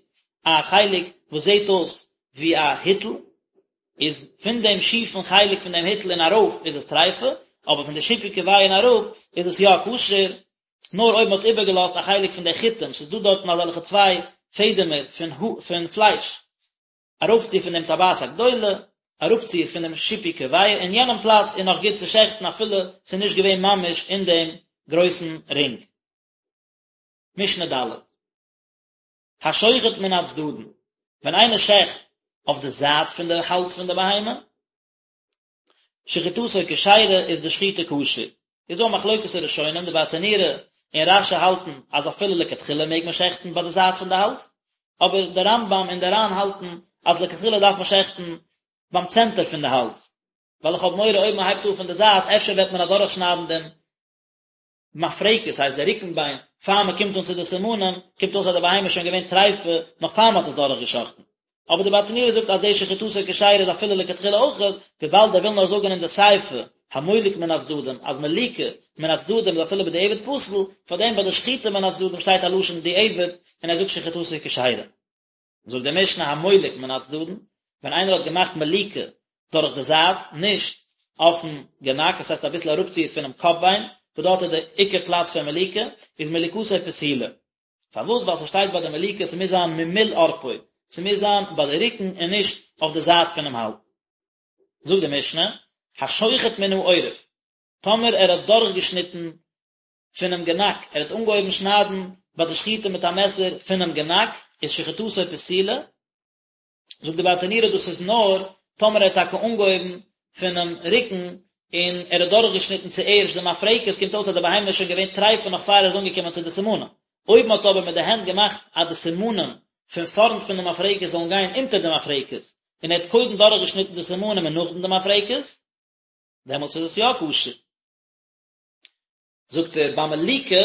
א חלק וואס זעט אויס ווי א היטל, איז פון דעם שיפן חלק פון דעם היטל און ארויף איז עס טריפה, אבער פון די שיפוי קובע און אראפ איז עס יא כשר, נאר אויב מען האט איבערגעלאזט א חלק פון די חוטים, ס'איז דא דארטן אזעלכע צוויי פעדעמער פון פון פלייש, ארויפציר פון דעם טבעת הגדולה, אראפציר פון דעם שיפוי קובע, אין יענעם פלאץ איז נאך גוט צו שעכטן אפילו ס'איז נישט געווען ממש אין דעם גרויסן רינג. משנה ד'. השוחט מן הצדדין, ווען איינער שעכט אויף די זייט פון די האלז פון די בהמה, שחיטתו כשרה איז די שחיטה כשר. איז דא א מחלוקת הראשונים, די ברטנורא און רש"י האלטן אז אפילו לכתחילה מעג מען שעכטן ביי די זייט פון די האלז, אבער די רמב"ם און די ר"ן האלטן אז לכתחילה דארף מען שעכטן ביים צענטער פון די האלז, ווייל איך האב מורא אויב מען הייבט אן פון די זייט אפשר וועט מען אדורכשניידן דעם מפרקת, ס'הייסט די רוקן ביין, פאר מען קומט אן צו די סימנים, קומט אויס אז די בהמה איז שוין געווען טריפה נאך פאר מען האט עס דורך געשאכטן. אבער די ברטנורא זאגט אז די שחיטתו כשרה איז אפילו לכתחילה אויכעט, וויבאלד ער וויל נאר זאגן אין די סיפא, המולק מן הצדדים, אז מליקה מן הצדדים איז אפילו בדיעבד פסול, פארדעם ביי די שחיטה מן הצדדים שטייט א לשון דיעבד, און ער זאגט שחיטתו כשרה. זאגט די משנה המולק מן הצדדין, ווען איינער האט געמאכט מליקה דורך די זייט, נישט אויפן גענאק, עס הייסט אביסל אראפציר פונעם קאפ ביין, וואס דארט איז די עיקר פלאץ פון מליקה, איז מליקתו פסולה. פארוואס? ווייל ס'שטייט ביי די מליקה ס'מוז זיין ממול עורפו, ס'מוז זיין ביי די רוקן און נישט אויף די זייט פונעם האלז. זאגט די משנה, השוחט מן העורף, טאמער ער האט דורכגעשניטן פונעם גענאק, ער האט אנגעהויבן שניידן ביי די שחיטה מיט א מעסער פונעם גענאק, איז שחיטתו פסולה, זאגט די ברטנורא דאס איז נאר טאמער ער האט טאקע אנגעהויבן פונעם רוקן און ער האט דורכגעשניטן צוערשט די מפרקת, קומט אויס אז די בהמה איז שוין געווען טריפה נאך פאר ער איז אנגעקומען צו די סימנים, אויב מען האט אבער מיט די הענט געמאכט אז די סימנים פון פארנט פון די מפרקת זאלן גיין אונטער די מפרקת, און ער האט קודם דורכגעשניטן די סימנים און נאכדעם די מפרקת, דעמאלטס איז עס יא כשר. זאגט ער ביי מליקה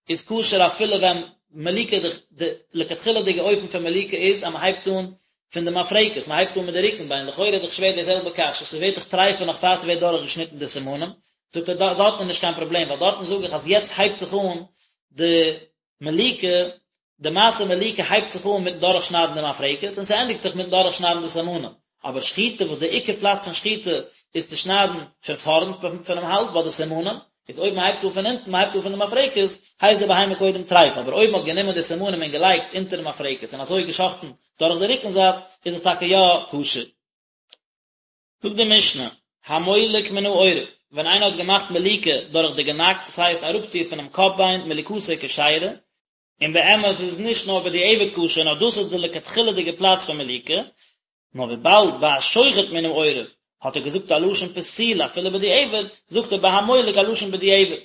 איז כשר אפילו ווען מליקה די די לכתחילה'דיגע אופן פון מליקה איז אז מען הייבט אן פון די מפרקת מען הייבט אן מיט די רוקן ביין לכאורה איז דאך שווער די זעלבע קשיא ס'ווערט דאך טריפה נאך פאר ס'ווערט דורך געשניטן די סימנים זאגט ער דארטן איז נישט קיין פראבלעם ווייל דארטן זאג איך אז יעצט הייבט זיך אן די מליקה די מעשה מליקה הייבט זיך אן מיטן דורכשניידן די מפרקת און ס'ענדיגט זיך מיטן דורכשניידן די סימנים, אבער שחיטה וואס די עיקר פלאץ פון שחיטה איז צו שניידן פון פארנט פונעם האלז ביי די סימנים, איז אויב מ'הייבט אן פון אונטן, מ'הייבט אן פון די מפרקת, הייסט די בהמה קודם טרייף, אבער אויב מ'האט גענומען די סימנים און געלייגט אונטערן מפרקת און אזוי געשחטן דורך די רוקן זייט, איז עס טאקע יא כשר. זאגט די משנה, המולק מן העורף, ווען איינער האט געמאכט מליקה דורך די גענאק, דאס הייסט אראפציר פונעם קאפ ביין, מליקתו כשרה, און באמת איז עס נישט נאר בדיעבד כשר נאר דאס איז די לכתחילה'דיגע פלאץ פון מליקה, נאר וויבאלד ביי השוחט מן העורף האט ער געזאגט א לשון פסולה אפילו בדיעבד, זאגט ער ביי המולק א לשון בדיעבד.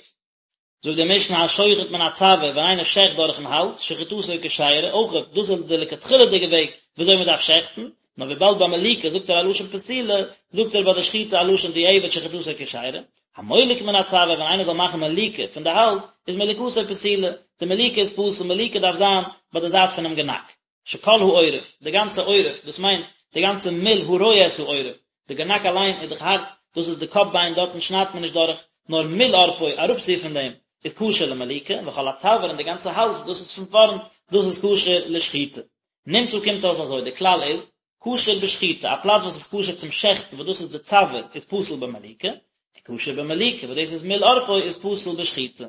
זאגט די משנה השוחט מן הצוואר ווען איינער שעכט דורכן האלז, שחיטתו כשרה, אויך דאס איז די לכתחילה'דיגע וועג וויאזוי מען דארף שעכטן, נאר וויבאלד ביי מליקה זאגט ער א לשון פסולה, זאגט ער ביי די שחיטה א לשון דיעבד שחיטתו כשרה. המולק מן הצוואר ווען איינער זאל מאכן מליקה פון די האלז, איז מליקתו פסולה, די מליקה איז פסול, מליקה דארף זיין ביי די זייט פונעם גענאק. שכל העורף, די גאנצע עורף, דאס מיינט די גאנצע מול הרואה את העורף, די גענאק אליין איז דאך הארט, דאס איז די קאפ ביין, דארטן שניידט מען נישט דורך, נאר מול עורפו, אראפציר פון דעם, איז כשר למליקה, וכל הצוואר און די גאנצע האלז, דאס איז פון פארנט, דאס איז כשר לשחיטה. נמצא קומט אויס אזוי, די כלל איז, כשר בשחיטה, א פלאץ וואס איז כשר צום שעכטן וואס דאס איז די צוואר איז פסול במליקה, און כשר במליקה וואס דאס איז מול עורפו איז פסול בשחיטה.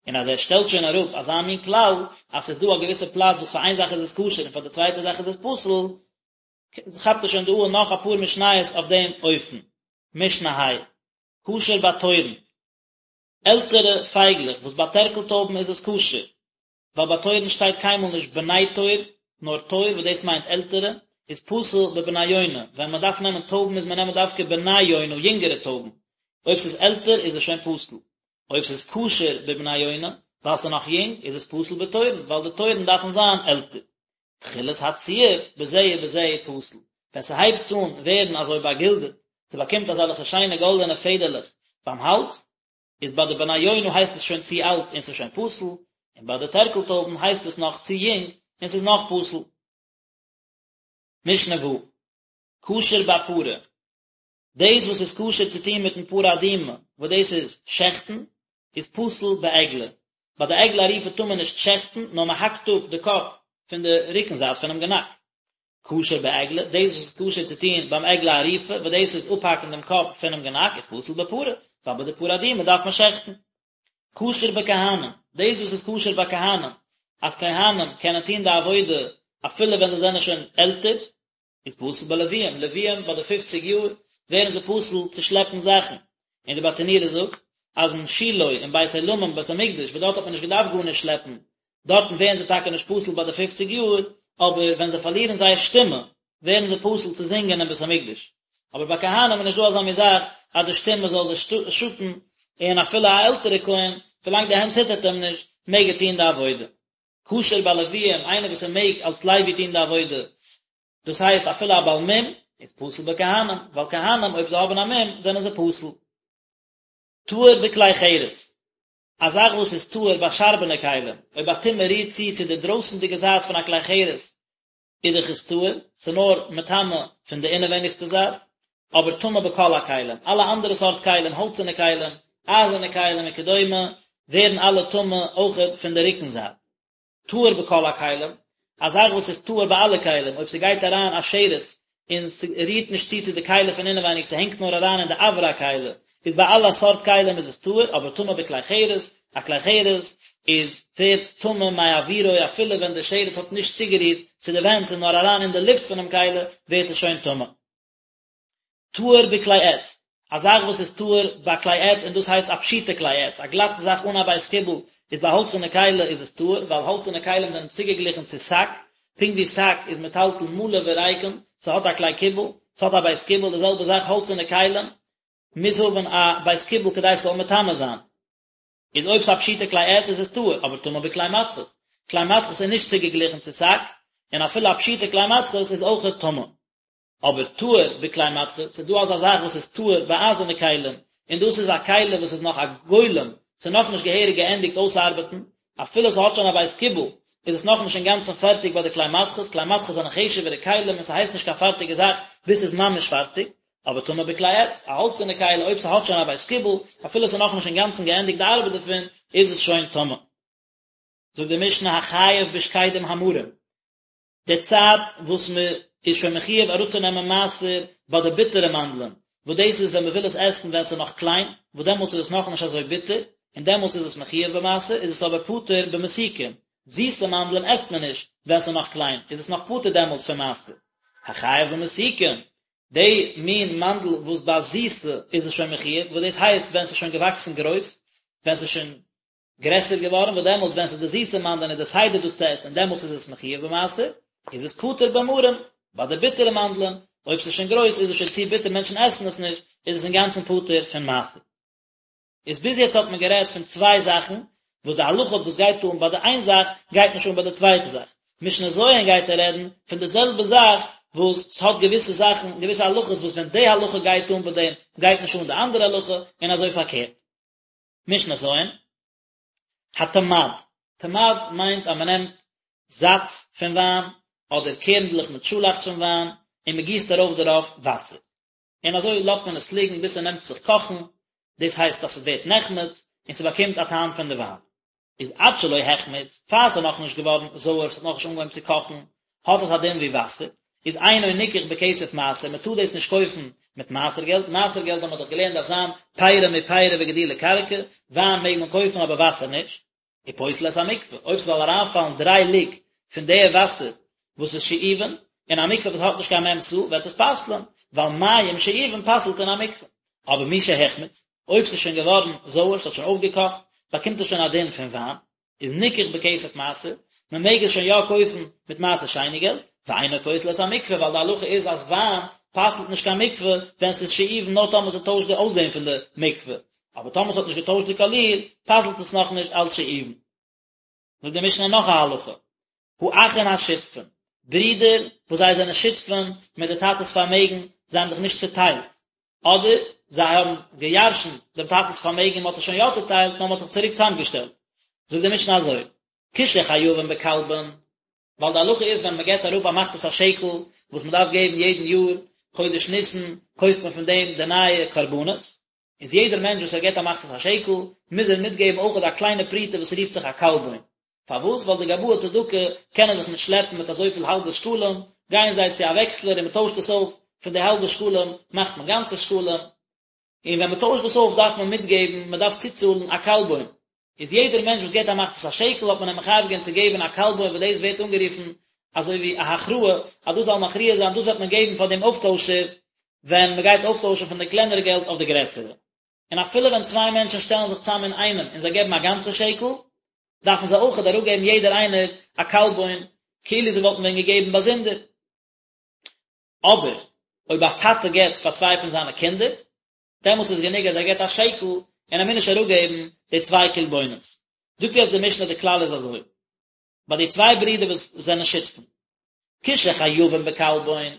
און אז ער שטעלט שוין אראפ אזא מין כלל, אז ס'איז דא א געוויסע פלאץ וואס פאר איין זאך איז עס כשר און פאר די צווייטע זאך איז עס פסול, כאפט ער שוין דא אן נאך אפאר משניות אויף דעם אופן. משנה ה', כשר בתורין, עלטערע פייגלעך וואס ביי טערקל טויבן איז עס כשר, ווייל ביי תורין שטייט קיינמאל נישט בני תור, נאר תור וואס דאס מיינט עלטערע, איז פסול בבני יונה, ווען מען דארף נעמען טויבן מוז מען נעמען דווקא בני יונה, יונגערע טויבן, אויב ס'איז עלטער איז עס שוין פסול. אויב ס'איז כשר בבני יונה, ווייל ס'איז נאך יונג, איז עס פסול בתורין, ווייל די תורין דארפן זיין עלטער. תחילת הציוף בזה ובזה פסול, ווען ס'הייבט אן ווערן אזוי באגילדעט, ס'באקומט אזעלכע שיינע גאלדענע פעדערלעך ביים האלז, איז ביי די בני יונה הייסט עס שוין צו אלט און ס'איז שוין פסול, און ביי די טערקל טויבן הייסט עס נאך צו יונג און ס'איז נאך פסול. משנה ו', כשר בפרה, דאס וואס איז כשר צו טון מיטן פרה אדומה, וואס דאס איז שעכטן, איז פסול בעגלה. ביי די עגלה ערופה טאר מען נישט שעכטן, נאר מען האקט אפ די קאפ פון די רוקן זייט פונעם גענאק. כשר בעגלה, דאס וואס איז כשר צו טון ביים עגלה ערופה, וואס דאס איז אפהאקן דעם קאפ פונעם גענאק, איז פסול בפרה. ווייל ביי די פרה אדומה דארף מען שעכטן. כשר בכהנים, דאס וואס איז כשר ביי כהנים, אז כהנים קענען טון די עבודה אפילו ווען זיי זענען שוין עלטער, איז פסול בלוויים, לוויים ביי די פופציג יאר ווערן זיי פסול צו שלעפן זאכן, און די ברטנורא זאגט אז אין שילה אין בית עולמים בית המקדש וואס דארט האט מען נישט געדארפט גארנישט שלעפן, דארטן ווערן זיי טאקע נישט פסול ביי די פופציג יאר, אבער ווען זיי פארלירן זייער שטימע ווערן זיי פסול צו זינגען אין בית המקדש. אבער ביי כהנים איז נישט דא אזא מין זאך אז די שטימע זאל זיי שאטן, און אפילו א עלטערע כהן, ווילאנג די הענט ציטערט אים נישט, מעג ער טון די עבודה. כשר בלוויים, איינער וואס ער מעג אלס לוי טון די עבודה, דאס הייסט אפילו א בעל מום, איז פסול בכהנים, ווייל כהנים אויב זיי האבן א מום זענען זיי פסול. טהור בכלי חרס, א זאך וואס איז טהור ביי שארבענע כלים, אויב א טומאה רירט צו צו די דרויסנדיגע זייט פון א כלי חרס, איז דאך עס טהור, ס'איז נאר מטמא פון די אינעווייניגסטע זייט, אבער טמא בכל הכלים, אלע אנדערע סארט כלים, האלצערנע כלים, אייזערנע כלים וכדומה, ווערן אלע טמא אויכעט פון די רוקן זייט. טהור בכל הכלים, א זאך וואס איז טהור ביי אלע כלים, אויב ס'גייט אריין א שרץ און ס'רירט נישט צו צו די כלי פון אינעווייניג, ס'הענגט נאר אריין אין די אויר הכלי, איז ביי אלע סארט כלים איז עס טהור, אבער טמא בכלי חרס, א כלי חרס איז ווערט טמא מאוירו אפילו ווען די שרץ האט נישט צוגערירט צו די ווענט ס'איז נאר אריין אין די לופט פונעם כלי ווערט עס שוין טמא. טהור בכלי עץ, א זאך וואס איז טהור ביי כלי עץ און דאס הייסט א פשוטע כלי עץ, א גלאטע זאך אן א בית קיבול, איז ביי האלצערנע כלי איז עס טהור, ווייל האלצערנע כלים זענען צוגעגליכן צו שק, פונקט ווי שק איז מטלטל מלא וריקם, ס'האט א כלי קיבול, ס'האט א בית קיבול, די זעלבע זאך האלצערנע כלים מוז האבן א בית קיבול כדי ס'זאל מטמא זיין. איז אויב ס'איז א פשוטע כלי עץ איז עס טהור, אבער טמא בכלי מתכות. כלי מתכות איז נישט צוגעגליכן צו שק, און אפילו א פשוטע כלי מתכות איז אויכעט טמא. אבער טהור בכלי מתכות, ס'איז דא אזא זאך וואס איז טהור ביי אייזערנע כלים, און דאס איז א כלי וואס איז נאך א גולם, ס'איז נאכנישט געהעריג געענדיגט אויסארבעטן, אפילו ס'האט שוין א בית קיבול, איז עס נאכנישט אינגאנצן פערטיג ביי די כלי מתכות, כלי מתכות זענען חשוב'ערע כלים און ס'הייסט נישט קיין פארטיגע זאך ביז ס'איז ממש פארטיג, אבער טמא בכלי עץ, א האלצערנע כלי אויב ס'האט שוין א בית קיבול, אפילו ס'איז נאכנישט אינגאנצן געענדיגט די ארבעט דערפון, איז עס שוין טמא. זאגט די משנה החייב בשקדים המרים, די צייט וואס מען איז שוין מחיוב אראפצונעמען מעשר ביי די ביטערע מאנדלען, וואס דאס איז ווען מען וויל עס עסן ווען עס איז נאך קליין, וואס דעמאלטס איז עס נאכנישט אזוי ביטער, און דעמאלטס איז עס מחיוב במעשר, איז עס אבער פטור במתוקים, זיסע מאנדלען עסט מען נישט ווען עס איז נאך קליין, איז עס נאך פטור דעמאלטס פון מעשר. החייב במתוקים, די מין מאנדל וואס ביי זיסע איז עס שוין מחיוב, וואס דאס הייסט ווען עס איז שוין געוואקסן גרויס, ווען עס איז שוין גרעסער געווארן, וואס דעמאלטס ווען ס'איז די זיסע מאנדלען איז די סדר דאס צו עסן און דעמאלטס איז עס מחיוב במעשר, איז עס פטור במרים, ביי די ביטערע מאנדלען, אויב ס'איז שוין גרויס איז עס שוין צו ביטער מענטשן עסן עס נישט, איז עס אינגאנצן פטור פון מעשר. איז ביז יעצט האט מען גערעדט פון צוויי זאכן, וואס די הלכה וואס גייט אן ביי די איין זאך גייט נישט אן ביי די צווייטע זאך. משנה ז' גייט ער רעדן פון די זעלבע זאך וואס ס'האט געוויסע זאכן, געוויסע הלכות וואס ווען די הלכה גייט אן ביי דעם גייט נישט אן די אנדערע הלכה, און אזוי פארקערט. משנה ז', התמד, תמד מיינט אז מען נעמט זאץ פון וויין, אדער קערנדלעך מיט שאלאכץ פון וויין, און מען גיסט ארויף דערויף וואסער. און אזוי לאזט מען עס ליגן ביז ס'נעמט זיך קאכן, דאס הייסט אז ס'ווערט נחמץ, און ס'באקומט א טעם פון די וויין. איז עד שלא החמיץ, פאר ס'איז נאכנישט געווארן זויער, ס'האט נאכנישט אנגעהויבן צו קאכן, האט עס א דין ווי וואסער, איז אינו ניקח בכסף מעשר, מען טאר דאס נישט קויפן מיט מעשר געלט, מעשר געלט האט מען דאך געלערנט דארף זיין פירי מפירי וגידולי קרקע, וויין מעג מען קויפן אבער וואסער נישט. ופוסל את המקווה, אויב ס'זאל אריינפאלן דריי לוג פון די וואסער וואס איז שאובין, אין א מקווה וואס האט נישט קיין מ' סאה וועט עס פסל'ען, ווייל מים שאובין פסל'ט אין א מקווה. אבער משהחמיץ, אויב ס'איז שוין געווארן זויער, ס'האט שוין אויפגעקאכט, באקומט עס שוין א דין פון וויין, איז ניקח בכסף מעשר, מען מעג עס שוין יא קויפן מיט מעשר שני געלט, ואינו פוסל את המקווה, ווייל די הלכה איז אז וויין פסל'ט נישט קיין מקווה ווען ס'איז שאובין נאר טאמער ס'טוישט די אויסזען פון די מקווה, אבער טאמער ס'האט נישט געטוישט די קאליר, פסל'ט עס נאכנישט אלץ שאובין. זאגט די משנה נאך א הלכה, האחין השותפין, ברידער וואס זיי זענען שותפים מיט די טאטע'ס פארמעגן, זיי האבן זיך נישט צוטיילט, אדער זיי האבן געירשנט דעם טאטנ'ס פארמעגן און מען האט עס שוין יא צוטיילט נאר מען האט זיך צוריק צוזאמגעשטעלט. זאגט די משנה אזוי, כשחייבין בקלבון, ווייל די הלכה איז ווען מען געבט אראפ א מחצית השקל וואס מען דארף געבן יעדן יאר חודש ניסן קויפט מען פון דעם די נייע קרבנות, איז יעדער מענטש וואס ער געבט א מחצית השקל מוז ער מיטגעבן אויכעט א קליינע פרוטה וואס רופט זיך א קלבון, פארוואס? ווייל די גבאי צדקה קענען זיך נישט שלעפן מיט אזויפיל האלבע שקלים, גייען זיי צו א וועקסלער און מען טוישט עס אויף, פון די האלבע שקלים מאכט מען גאנצע שקלים. און ווען מען טוישט דאס אויף דארף מען מיטגעבן, מען דארף צוצאלן א קלבון, איז יעדער מענטש וואס געבט א מחצית השקל האט מען אים מחייב געווען צו געבן א קלבון וואס דאס ווערט אנגערופן אזוי ווי א הכרעה אז דאס זאל מכריע זיין דאס וועט מען געבן פאר דעם אויפטוישער ווען מען גייט אויפטוישן פון די קלענערע געלט אויף די גרעסערע. און אפילו ווען צוויי מענטשן שטעלן זיך צאם אין איינעם און זיי געבן א גאנצע שקל, דארפן זיי אויכעט אראפגעבן יעדער איינער א קלבון כאילו זיי וואלטן ווען געגעבן באזונדער. אבער אויב א טאטע געבט פאר צוויי פון זיינע קינדער, דעמאלטס איז גענוג אז ער געבט א שקל און ער מוז נישט אראפגעבן די צוויי קלבונות. זאגט יעצט די משנה די כלל איז אזוי, ביי די צוויי ברידער וואס זענען שותפים, כשחייבים בקלבון,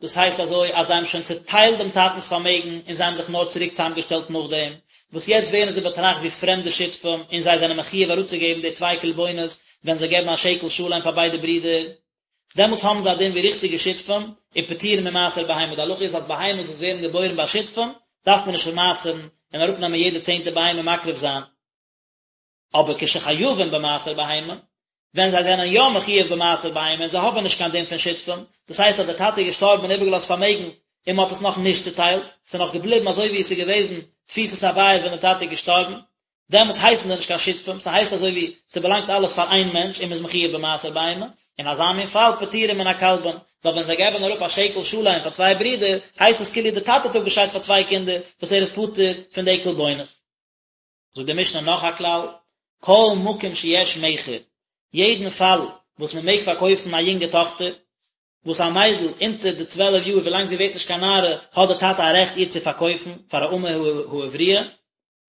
דאס הייסט אזוי אז זיי האבן שוין צוטיילט דעם טאטנ'ס פארמעגן און זיי האבן זיך נאר צוריק צוזאמגעשטעלט נאכדעם, וואס יעצט ווערן זיי באטראכט ווי פרעמדע שותפים און זיי זענען מחיוב אראפצוגעבן די צוויי קלבונות ווען זיי געבן א שקל שלם פאר ביידע ברידער, דעמאלטס האבן זיי א דין ווי ריכטיגע שותפים, ופטורין ממעשר בהמה, די הלכה איז אז בהמות וואס ווערן געבוירן ביי שותפים, דארף מען נישט מעשר'ן און אראפנעמען יעדע צענטע בהמה מקריב זיין. אבער כשחייבים במעשר בהמה, ווען זיי זענען יא מחיוב במעשר בהמה און זיי האבן נישט קיין דין פון שותפים, דאס הייסט אז דער טאטע איז געשטארבן און איבערגעלאזט פארמעגן און מען האט עס נאך נישט צוטיילט, ס'איז נאך געבליבן אזוי ווי עס איז געוועזן תפיסת הבית ווען דער טאטע איז געשטארבן, דעמאלטס הייסן זיי נישט קיין שותפים, ס'הייסט אזוי ווי ס'באלאנגט אלעס פאר איין מענטש און מ'איז מחיוב במעשר בהמה, אין אזא מין פאל פטורין מן הקלבון, ווייל ווען זיי געבן אראפ א שקל שלם פאר צוויי ברידער, הייסט עס כאילו די טאטע האט אפגעשיידט פאר צוויי קינדער וואס ער איז פטור פון די קלבונות. זאגט די משנה נאך א כלל, כל מקום שיש מכר, יעדן פאל וואס מ'מעג פארקויפן א יונגע טאכטער, וואס א מיידל אונטער די צוועלף יאר ווילאנג זי ווערט נישט קיין נערה האט די טאטע א רעכט איר צו פארקויפן פאר א אמה העבריה,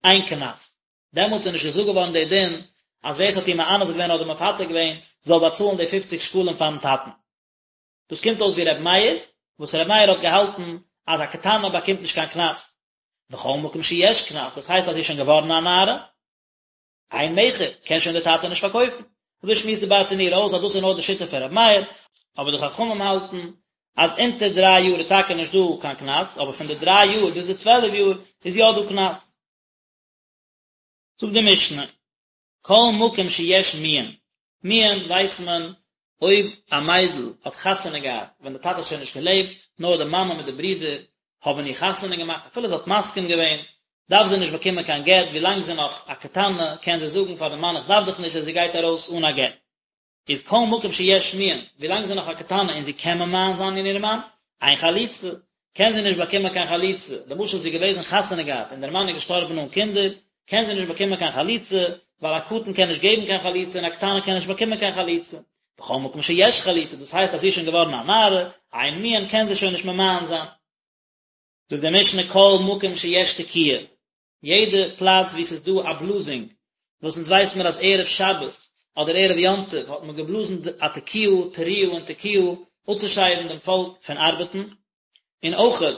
אין קנס. דעמאלטס איז נישט געזאגט געווארן דער דין אז ווער עס האט איר מאנס געווען אדער מפתה געווען זאל באצאלן די פופציג שקלים פארן טאטן. דאס קומט אויס ווי ר' מאיר, וואס ר' מאיר האט געהאלטן אז א קטנה באקומט נישט קיין קנס. בכל מקום שיש קנס, דאס הייסט אז זי איז שוין געווארן א נערה, אין מכר, קען שוין דער טאטע נישט פארקויפן. אזוי שמועסט די ברטנורא אויס אז דאס איז נאר די שיטה פון ר' מאיר, אבער די חכמים האלטן אז אונטער דריי יאר איז טאקע נישט דא קיין קנס, אבער פון די דריי יאר ביז די צוועלף יאר איז יא דא קנס. זאגט די משנה, כל מקום שיש מיאון, מיאון ווייסט מען אויב א מיידל האט חתונה געהאט ווען די טאטע האט שוין נישט געלעבט, נאר די מאמע מיט די ברידער האבן איר חתונה געמאכט, אפילו זי האט מסכים געווען, דארף זי נישט באקומען קיין גט, ווילאנג זי איז נאך א קטנה קען זי זאגן פאר די מאן איך דארף דיך נישט און זי גייט ארויס אן א גט. איז כל מקום שיש מיאון, ווילאנג זי איז נאך א קטנה און זי קען ממאן זיין אין איר מאן, אין חליצה, קען זי נישט באקומען קיין חליצה, למשל זי איז געוועזן חתונה געהאט און דער מאן איז געשטארבן אן קינדער, קען זי נישט באקומען קיין חליצה, ווייל א קטן קען נישט געבן קיין חליצה און א קטנה קען נישט באקומען קיין חליצה. בכל מקום שיש חליצה, דאס הייסט אז זי איז שוין געווארן א נערה, אין מיאון קען זי שוין נישט ממאן זיין. זאגט די משנה כל מקום שיש תקיעה, יעדע פלאץ וואו ס'איז דא א בלאזינג, וואס אונז ווייס מיר אז ערב שבת אדער ערב יום טוב האט מען געבלאזן א תקיעה, תרועה און תקיעה, אפצושיידן דעם פאלק פון ארבעטן, און אויכעט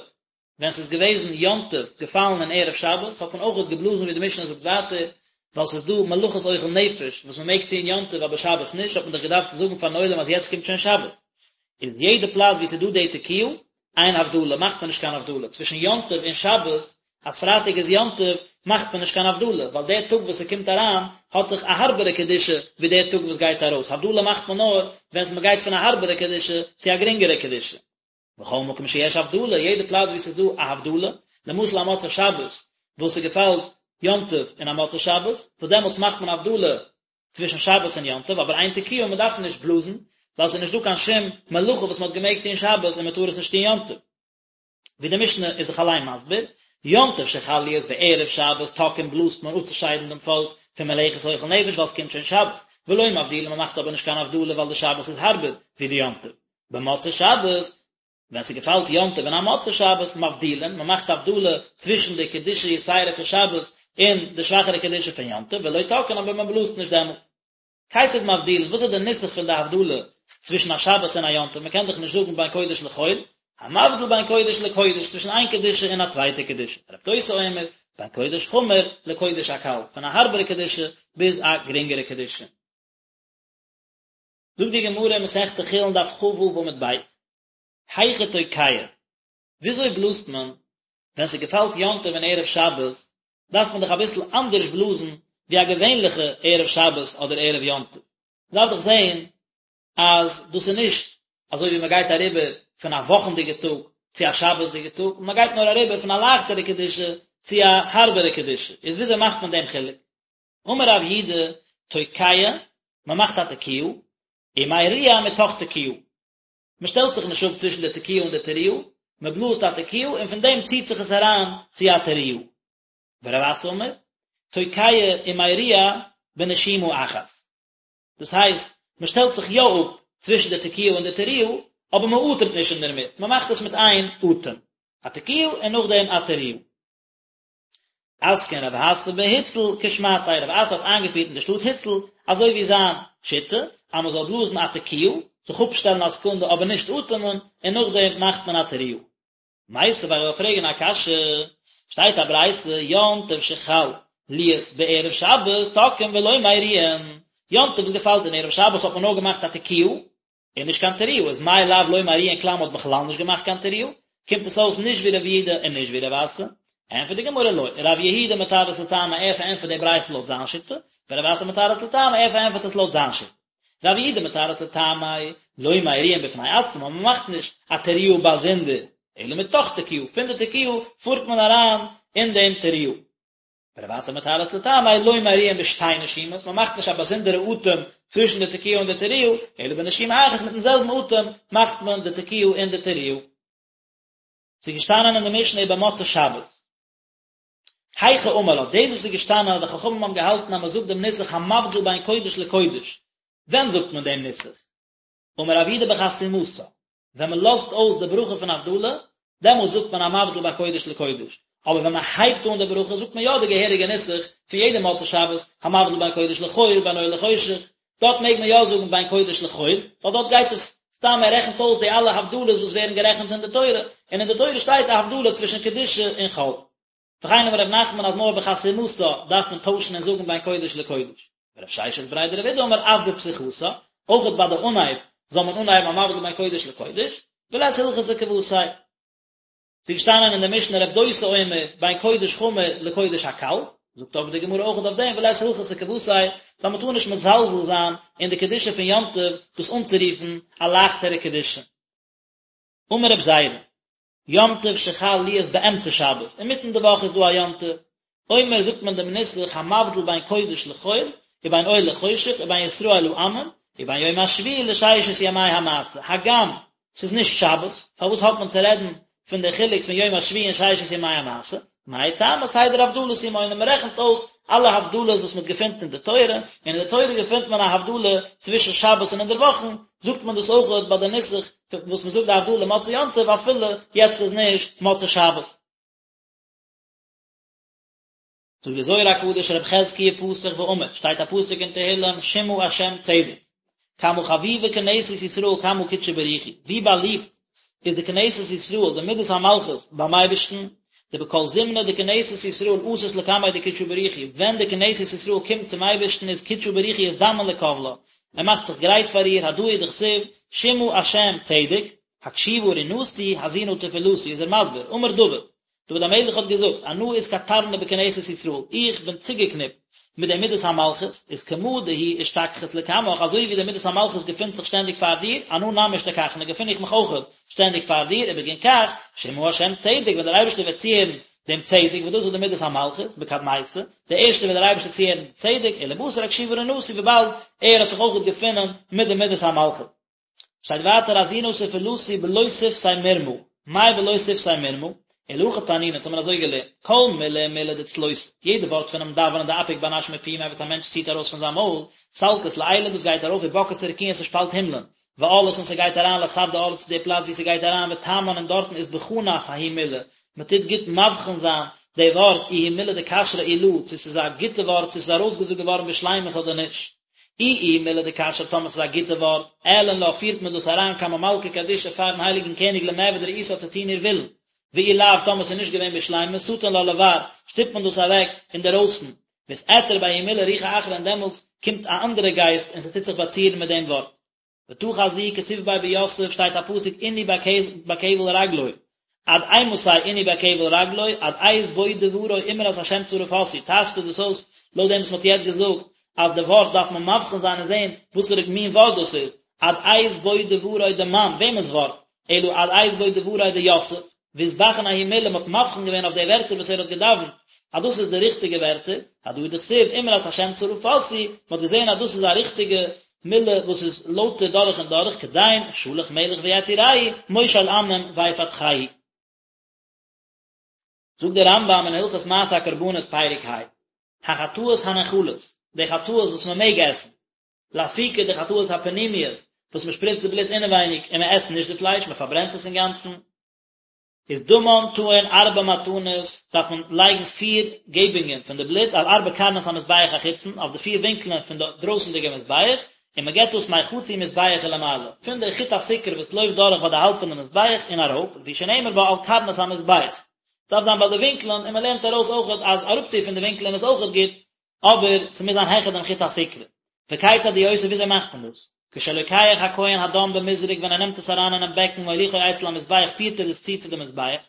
ווען ס'איז געוועזן יום טוב געפאלן אין ערב שבת האט מען אויכעט געבלאזן ווי די משנה זאגט ווייטער, ווייל ס'איז דא מלאכות אוכל נפש וואס מ'מעג טון יום טוב אבער שבת נישט, האט מען דאך געדארפט זאגן פארן עולם אז יעצט קומט שוין שבת. איז יעדע פלאץ וואו ס'איז דא די תקיעה, אין הבדלה, מאכט מען נישט קיין הבדלה צווישן יום טוב און שבת, אז פרייטאג איז יום טוב מאכט מען נישט קיין הבדלה, ווייל דער טאג וואס ס'קומט אריין האט דאך א הארבערע קדושה ווי דער טאג וואס גייט ארויס, הבדלה מאכט מען נאר ווען מ'גייט פון א הארבערע קדושה צו א גרינגערע קדושה. בכל מקום שיש הבדלה, יעדע פלאץ וואו ס'איז דא א הבדלה, למשל א מוצאי שבת וואס ס'געפאלט יום טוב אין א מוצאי שבת, וואס דעמאלטס מאכט מען הבדלה צווישן שבת און יום טוב, אבער אין תקיעה מען דארף נישט בלאזן, ווייל ס'איז נישט דא קיין שום מלאכה וואס מען האט געמעגט טון שבת און מען טאר עס נישט טון יום טוב. ווי די משנה איז זיך אליין מסביר, יום טוב שחל להיות בערב שבת תוקעין בלאזט מען אפצושיידן דעם פאלק פון מלאכת אוכל נפש ווייל ס'קומט שוין שבת, ולא מבדילין מען מאכט אבער נישט קיין הבדלה ווייל די שבת איז הארבער ווי די יום טוב. במוצאי שבת, ווען ס'געפאלט יום טוב אין א מוצאי שבת, מבדילין, מ'מאכט הבדלה צווישן די קדושה יתירה פון שבת און די שוואכערע קדושה פון יום טוב, ולא תוקעין אבער מ'בלאזט נישט דעמאלט. כיצד מבדילין, וואס איז די נוסח פון די הבדלה צווישן א שבת און א יום טוב, מ'קען דאך נישט זאגן בין קודש לחול, המבדיל בין קודש לקודש, צווישן איין קדושה און א צווייטע קדושה, רב דוסא אומר, בין קודש חמור לקודש הקל, פון א הארבערע קדושה ביז א גרינגערע קדושה. זאגט די גמרא אין מסכת חולין דף כ"ו עמוד ב', היכי תוקע, וויאזוי בלאזט מען ווען ס'געפאלט יום טוב אין ערב שבת, דארף מען דאך אביסל אנדערש בלאזן ווי א געווענליכע ערב שבת אדער ערב יום טוב, מ'דארף דאך זען אז דאס איז נישט אזוי ווי מ'גייט אריבער פון א וואכנדיגע טאג צו א שבת'דיגע טאג, מ'גייט נאר אריבער פון א לייכטערע קדושה. צו א הארבערע קדושה, איז וויאזוי מאכט מען דעם חילוק? אמר רב יהודה, תוקע, מען מאכט א תקיעה, ומריע מתוך תקיעה. מען שטעלט זיך נישט אפ צווישן די תקיעה און די תרועה, מען בלאזט א תקיעה און פון דעם ציט זיך עס אריין צו א תרועה. ורב אסי אמר, תוקע ומריע בנשימה אחת. דאס הייסט, מען שטעלט זיך יא אפ צווישן די תקיעה און די תרועה, אבער מען אטעמט נישט אינדערמיט, מען מאכט עס מיט איין אטעם, א תקיעה און נאכדעם א תרועה. אתקין רב אסי בהוצל כשמעתיה, רב אסי האט איינגעפירט אין די שטאט הוצל אזוי ווי זיין שיטה, אז מען זאל בלאזן א תקיעה, זיך אפשטעלן א סעקונדע אבער נישט אטעמען, און נאכדעם מאכט מען א תרועה. מיתיבי, איך וועל פרעגן א קשיא, שטייט א ברייתא, יום טוב שחל להיות בערב שבת תוקעין ולא מריעין, יום טוב וואס געפאלט אין ערב שבת האט מען נאר געמאכט א תקיעה, און נישט קיין תרועה, איז מאי לאו לא מריעין כלל מ'האט בכלל נישט געמאכט קיין תרועה, קומט עס אויס נישט ווי רב יהודה און נישט ווי רב אסי, ענטפערט די גמרא לא, רב יהודה מתרץ לטעמיה ער פארענטפערט די ברייתא לויט זיין שיטה, ורב אסי מתרץ לטעמיה ער פארענטפערט עס לויט זיין שיטה. רב יהודה מתרץ לטעמיה, לא מריעין בפני עצמה, מען מאכט נישט א תרועה באזונדער, אלא מתוך תקיעה, פון די תקיעה פארט מען אריין אין דעם תרועה. ורב אסי מתרץ לטעמיה, לא מריעין בשתי נשימות, מען מאכט נישט א באזונדערע אטעם צווישן די תקיעה און די תרועה, אלא בנשימה אחת מיטן זעלבן אטעם מאכט מען די תקיעה און די תרועה. ס'איז געשטאנען אין די משנה ובמוצאי שבת. היכי אמר לה, דאס וואס איז געשטאנען אז די חכמים האבן געהאלטן אז מען זאגט דעם נוסח המבדיל בין קודש לקודש, ווען זאגט מען דעם נוסח? אמר רב יהודה בחתימתה, ווען מען לאזט אויס די ברכה פון הבדלה, דעמאלט זאגט מען המבדיל בין קודש לקודש, אבער ווען מען הייבט אן די ברכה זאגט מען יא די געהעריגע נוסח פון יעדע מוצאי שבת, המבדיל בין קודש לחול בין אור לחושך, דארט מעג מען יא זאגן בין קודש לחול, ווייל דארט גייט עס סתם ער רעכנט אויס די אלע הבדלות וואס ווערן גערעכנט אין די תורה, און אין די תורה שטייט א הבדלה צווישן קדושה און חול. וכן אמר ר' נחמן אז נאר בחתימתה דארף מען טוישן און זאגן בין קודש לקודש. ורב ששת בריה דרב אידי אמר אף בפתיחתה, אויכעט ביי די אנהייב זאל מען אנהייבן המבדיל בין קודש לקודש, ולית הלכתא כוותיה. ס'איז געשטאנען אין די משנה רב דוסא אומר בין קודש חמור לקודש הקל, זאגט אבער די גמרא אויך אויף דעם ולית הלכתא כוותיה, ווייל מ'טאר נישט מזלזל זיין אין די קדושה פון יום טוב דאס אנצורופן א לייכטערע קדושה. אמר רב זירא, יום טוב שחל להיות באמצע שבת, אינמיטן די וואך איז דא א יום טוב, אומר זאגט מען דעם נוסח המבדיל בין קודש לחול, ובין אור לחושך, ובין ישראל לעמים, ובין יום השביעי לששת ימי המעשה, הגם ס'איז נישט שבת, פארוואס האט מען צו רעדן פון די חילוק פון יום השביעי און ששת ימי המעשה? מאי טעמא סדר הבדלות הוא מונה, מען רעכנט אויס אלע הבדלות וואס מען געפינט אין די תורה, און אין די תורה געפינט מען א הבדלה צווישן שבת און אינדערוואכן, זאגט מען דאס אויך ביי די נוסח וואס מען זאגט די הבדלה מוצאי יום טוב אפילו יעצט איז נישט מוצאי שבת. זאגט די זוהר הקדוש רב חזקיה פתח ואמר, שטייט א פסוק אין תהילים שמעה השם צדק, כמה חביבה כנסת ישראל קמי קודשא בריך הוא, ווי באליבט איז די כנסת ישראל די מידת המלכות ביים אייבערשטן, דבכל זמנא דכנסת ישראל אתת לקמיה דקודשא בריך הוא, ווען די כנסת ישראל קומט צום אייבערשטן איז קודשא בריך הוא אזדמן לקבלה, ער מאכט זיך גרייט פאר איר, הדא הוא דכתיב, שמעה השם צדק, הקשיבה רנתי, האזינה תפלתי, איז ער מסביר, אמר דוד, דוד המלך האט געזאגט, אנא אתקטרנא בכנסת ישראל, איך בין צוגעקניפט מיט די מידת המלכות, איז כמה דהיא אשתכחת לקמך, אזוי ווי די מידת המלכות געפינט זיך שטענדיג פאר דיר, אנא נמי אשתכחנא, געפין איך מיך אויך שטענדיג פאר דיר, ובגין כך, שמעה השם צדק, ווען דער אייבערשטער וועט צוהערן דעם צדק, וואס דאס איז די מידת המלכות, בקדמיתא, די ערשטע וועט דער אייבערשטער צוהערן די צדק, ולבתר הקשיבה רנתי, וויבאלד ער האט זיך אויך געפונען מיט די מידת המלכות. שטייט ווייטער האזינה תפלתי בלא שפתי מרמה, מאי בלא שפתי מרמה? אלא הכי תנינא, אונז האבן אזוי געלערנט, כל מילי ומילי דצלותא, יעדע ווארט פונעם דאווענען דאפיק בר נש מפומיה וואס א מענטש ציט ארויס פון זיין מויל, סלקת לעילא דאס גייט ארויף ובקעת רקיעין ס'שפאלט הימלען, ועאלת און ס'גייט אריין לאתר דעאלא צו די פלאץ ווי ס'גייט אריין ותמן און דארטן אתבחנת ההיא מילא, מ'טוט גוט מבחין זיין די ווארט איהי מילא דכשרא אי לא, צו ס'איז א גוטע ווארט צו ס'איז ארויסגעזאגט געווארן בשלימות אדער נישט. אי איהי מילא דכשרא טאמער ס'איז א גוטע ווארט, עאלין לה פירט מען דאס אריין קמי מלכא קדישא פארן הייליגן קעניג למעבד רעותה צו טון איר ווילן, ואי לאו טאמער ס'איז נישט געווען בשלימות סטין לה לבר, שטופט מען דאס אוועק אינדערויסן, ואתעטר בההיא מילא רוחא אחרא און דעמאלטס קומט א אנדערע גייסט און ס'טוט זיך באצירן מיט דעם ווארט. ותא חזי כתיב ביה ביוסף שטייט א פסוק ענו בכבל רגלו עד אימתי ענו בכבל רגלו עד עת בוא דברו אמרת השם צרה פתי טייטשט ער דאס אויס לויט דעם וואס מען האט יעצט געזאגט אז די ווארט דארף מען מבחין זיין און זען וואסערע מין ווארט דאס איז עד עת בוא דברו דמאן וועמענס ווארט אלא עד עת בוא דברו דיוסף. ואתבחין ההיא מלה, מ'האט מבחין געווען אויף די ווערטער וואס ער האט געדאווענט, אז דאס איז די ריכטיגע ווערטער, הדא הוא דכתיב אמרת השם צרפתי, מ'האט געזען אז דאס איז א ריכטיגע מילה וואס איז לויטער דורך און דורך, כדין שלח מלך ויתירהו, מושל עמים ויפתחהו. זאגט דער רמב"ם אין הלכות מעשה הקרבנות פרק ה, החטאות הנאכלות, די חטאות וואס מען מעג עסן, לאפוקי די חטאות הפנימיות, וואס מען שפריצט די בלוט אינעווייניג און מען עסט נישט די פלייש, מען פארברענט עס אינגאנצן, איז דמן טעון ארבע מתנות, דארף מען לייגן פיר געבונגען פון די בלוט על ארבע קרנות המזבח החיצון, אויף די פיר ווינקלען פון די דרויסנדיגע מזבח, און מען געבט דאס מחצי מזבח ולמעלה, פון די חוט הסיקרא וואס לויפט דורך ביי די האלב פון די מזבח און ארויף, לפי שנאמר בה על קרנות המזבח. דארף זיין ביי די ווינקלען, און מען לערנט ארויס אויכעט אז אראפצו פון די ווינקלען איז אויכעט גוט, אבער ס'מוז זיין העכער דעם חוט הסיקרא. וכיצד הוא עושה וויאזוי מאכט מען דאס? כשלוקח הכהן הדם במזרק ווען ער נעמט עס אריין אינעם בעקן מוליכו אצל המזבח פירט ער עס צו צו די מזבח,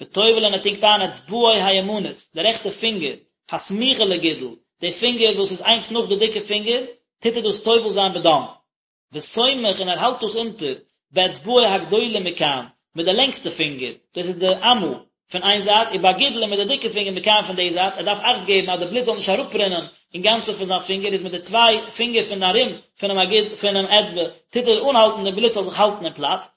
וטובל און ער טונקט איין אצבעו הימנית, די רעכטע פינגער, הסמוכה לגודל, די פינגער וואס איז איינס נאך די דיקע פינגער, טוט ער דאס טובל זיין בדם. וסומך און ער האלט דאס אונטער, באצבעו הגדולה מכאן, מיט די לענגסטע פינגער, דאס איז די אמה, פון איין זייט, ובגודל און מיט די דיקע פינגער מכאן פון די זייט, ער דארף אכט געבן אז די בלוט זאל נישט אראפרינען אינגאנצן פון זיין פינגער, איז מיט די צוויי פינגער פון ארום פונעם אגוד פונעם אצבע טוט ער אנהאלטן די בלוט זאל זיך האלטן אין פלאץ.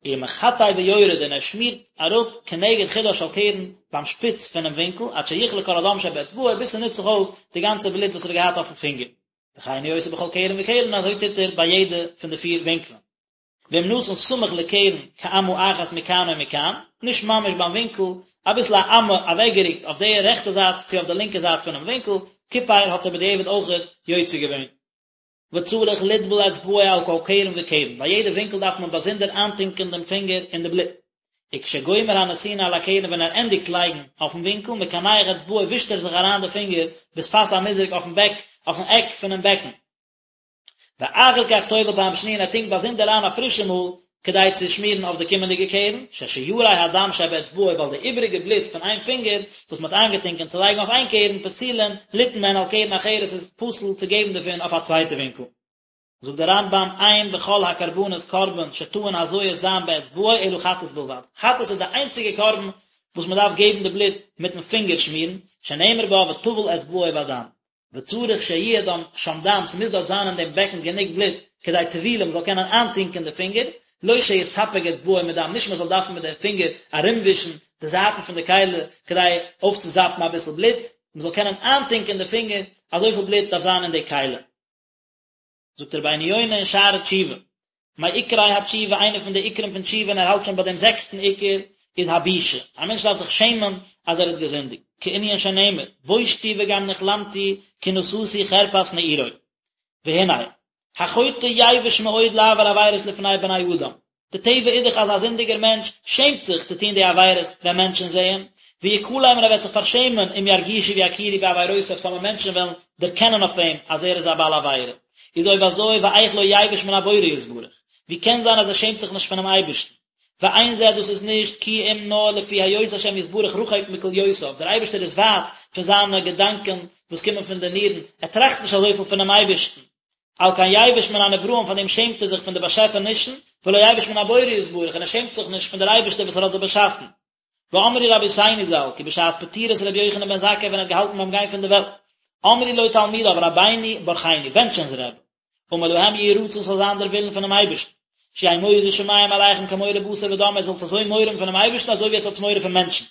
ומחטא ויורד און ער שמירט אראפ כנגד חודה של קרן ביים שפיץ פונעם ווינקל עד שיכלה כל הדם שבאצבעו ביז ס'נוצט זיך אויס די גאנצע בלוט וואס ער האט געהאט אויפן פינגער. וכן הוא עושה בכל קרן וקרן אזוי טוט ער ביי יעדע פון די פיר ווינקלען. ואם נתן סמוך לקרן כאמה אחת מכאן או מכאן, נישט ממש ביים ווינקל, אביסל א אמה אוועקגערוקט אויף די רעכטע זייט צו אויף די לינקע זייט פונעם ווינקל, כיפר האט ער בדיעבד אויכעט יוצא געווען. וצריך לטבול אצבעו על כל קרן וקרן, ביי יעדע ווינקל דארף מען באזונדער איינטונקען דעם פינגער אין די בלוט. וכשגומר הנתינה על הקרן ווען ער ענדיגט לייגן אויפן ווינקל, מקנח אצבעו ווישט ער זיך אריין די פינגער בשפת המזרק אויפן בעק אויפן עק פונעם בעקן. ואחר כך טובל פעם שניה און ער טונקט באזונדער איין א פרישע מאל כדי צו שמירן אויף די קומענדיגע קרן, ששיירי הדם שבאצבעו ווייל די איבעריגע בלוט פון איין פינגער וואס מען האט איינגעטונקען צו לייגן אויף איין קרן פסולין ליתן מהן על קרן אחרת איז פסול צו געבן דערפון אויף א צווייטע ווינקל. זאגט דער רמב"ם אין בכל הקרבנות קרבן שטעון הזיית דם באצבעו אלא חטאת בלבד, חטאת איז די איינציגע קרבן וואס מען דארף געבן די בלוט מיטן פינגער שמירן, שנאמר בה וטבל אצבעו בדם, וצריך שיהיה דם שם דם, ס'מוז דארט זיין אין דעם בעקן גענוג בלוט כדי טבילה מ'זאל קענען איינטונקען די פינגער, לא שיספג אצבעו מדם, נישט מ'זאל דארפן מיט די פינגער ארומווישן די זייטן פון די כלי כדי אויפצוזאפן אביסל בלוט, מ'זאל קענען איינטונקען די פינגער, אזויפיל בלוט דארף זיין אין די כלי. זאגט רבינו יונה אין שערי תשובה, מעיקרי התשובה, איינע פון די עיקרים פון תשובה און ער האלט שוין ביי דעם זעקסטן עיקר, איז הבושה, א מענטש דארף זיך שעמען אז ער האט געזינדיגט, כענין שנאמר, בושתי וגם נכלמתי כי נשאתי חרפת נעורי. והנה, החוטא יבוש מאוד לעבור עבירות לפני בני אדם, די טבע איז דאך אז א זינדיגער מענטש שעמט זיך צו טון די עבירות ווען מענטשן זעען, ויכלם און ער וועט זיך פארשעמען אם ירגישו ויכירו בעבירותיו טאמער מענטשן וועלן דערקענען אויף אים אז ער איז א בעל עבירה. איז אויב אזוי ואיך לא יבוש מן הבורא יתברך, ווי קען זיין אז ער שעמט זיך נישט פונעם אייבערשטן? ואין זה דאס איז נישט כי אם נאר לפי היות השם יתברך רחוק מכליותיו, דער אייבערשטער איז ווייט פון זיינע געדאנקען וואס קומען פון די נירן, ער טראכט נישט אזויפיל פונעם אייבערשטן, על כן יבוש מן הנבראים פאר דעם שעמט ער זיך פון די באשעפענישן, ולא יבוש מן הבורא יתברך און ער שעמט זיך נישט פון דער אייבערשטער וואס ער האט זיי באשאפן. ואמרו רבותינו ז"ל, כי בשעת פטירת רבי יוחנן בן זכאי ווען ער האט געהאלטן ביים גיין פון די וועלט, אמרו לו תלמידיו רבינו ברכנו, בענטש אונז רבי, אמר להם יהי רצון ס'זאל זיין דער ווילן פונעם אייבערשטן, שיהא מורא שמים עליכם כמורא בשר ודם, עטס זאלטס אזוי מורא האבן פונעם אייבערשטן אזוי ווי עטס האטס מורא פון מענטשן.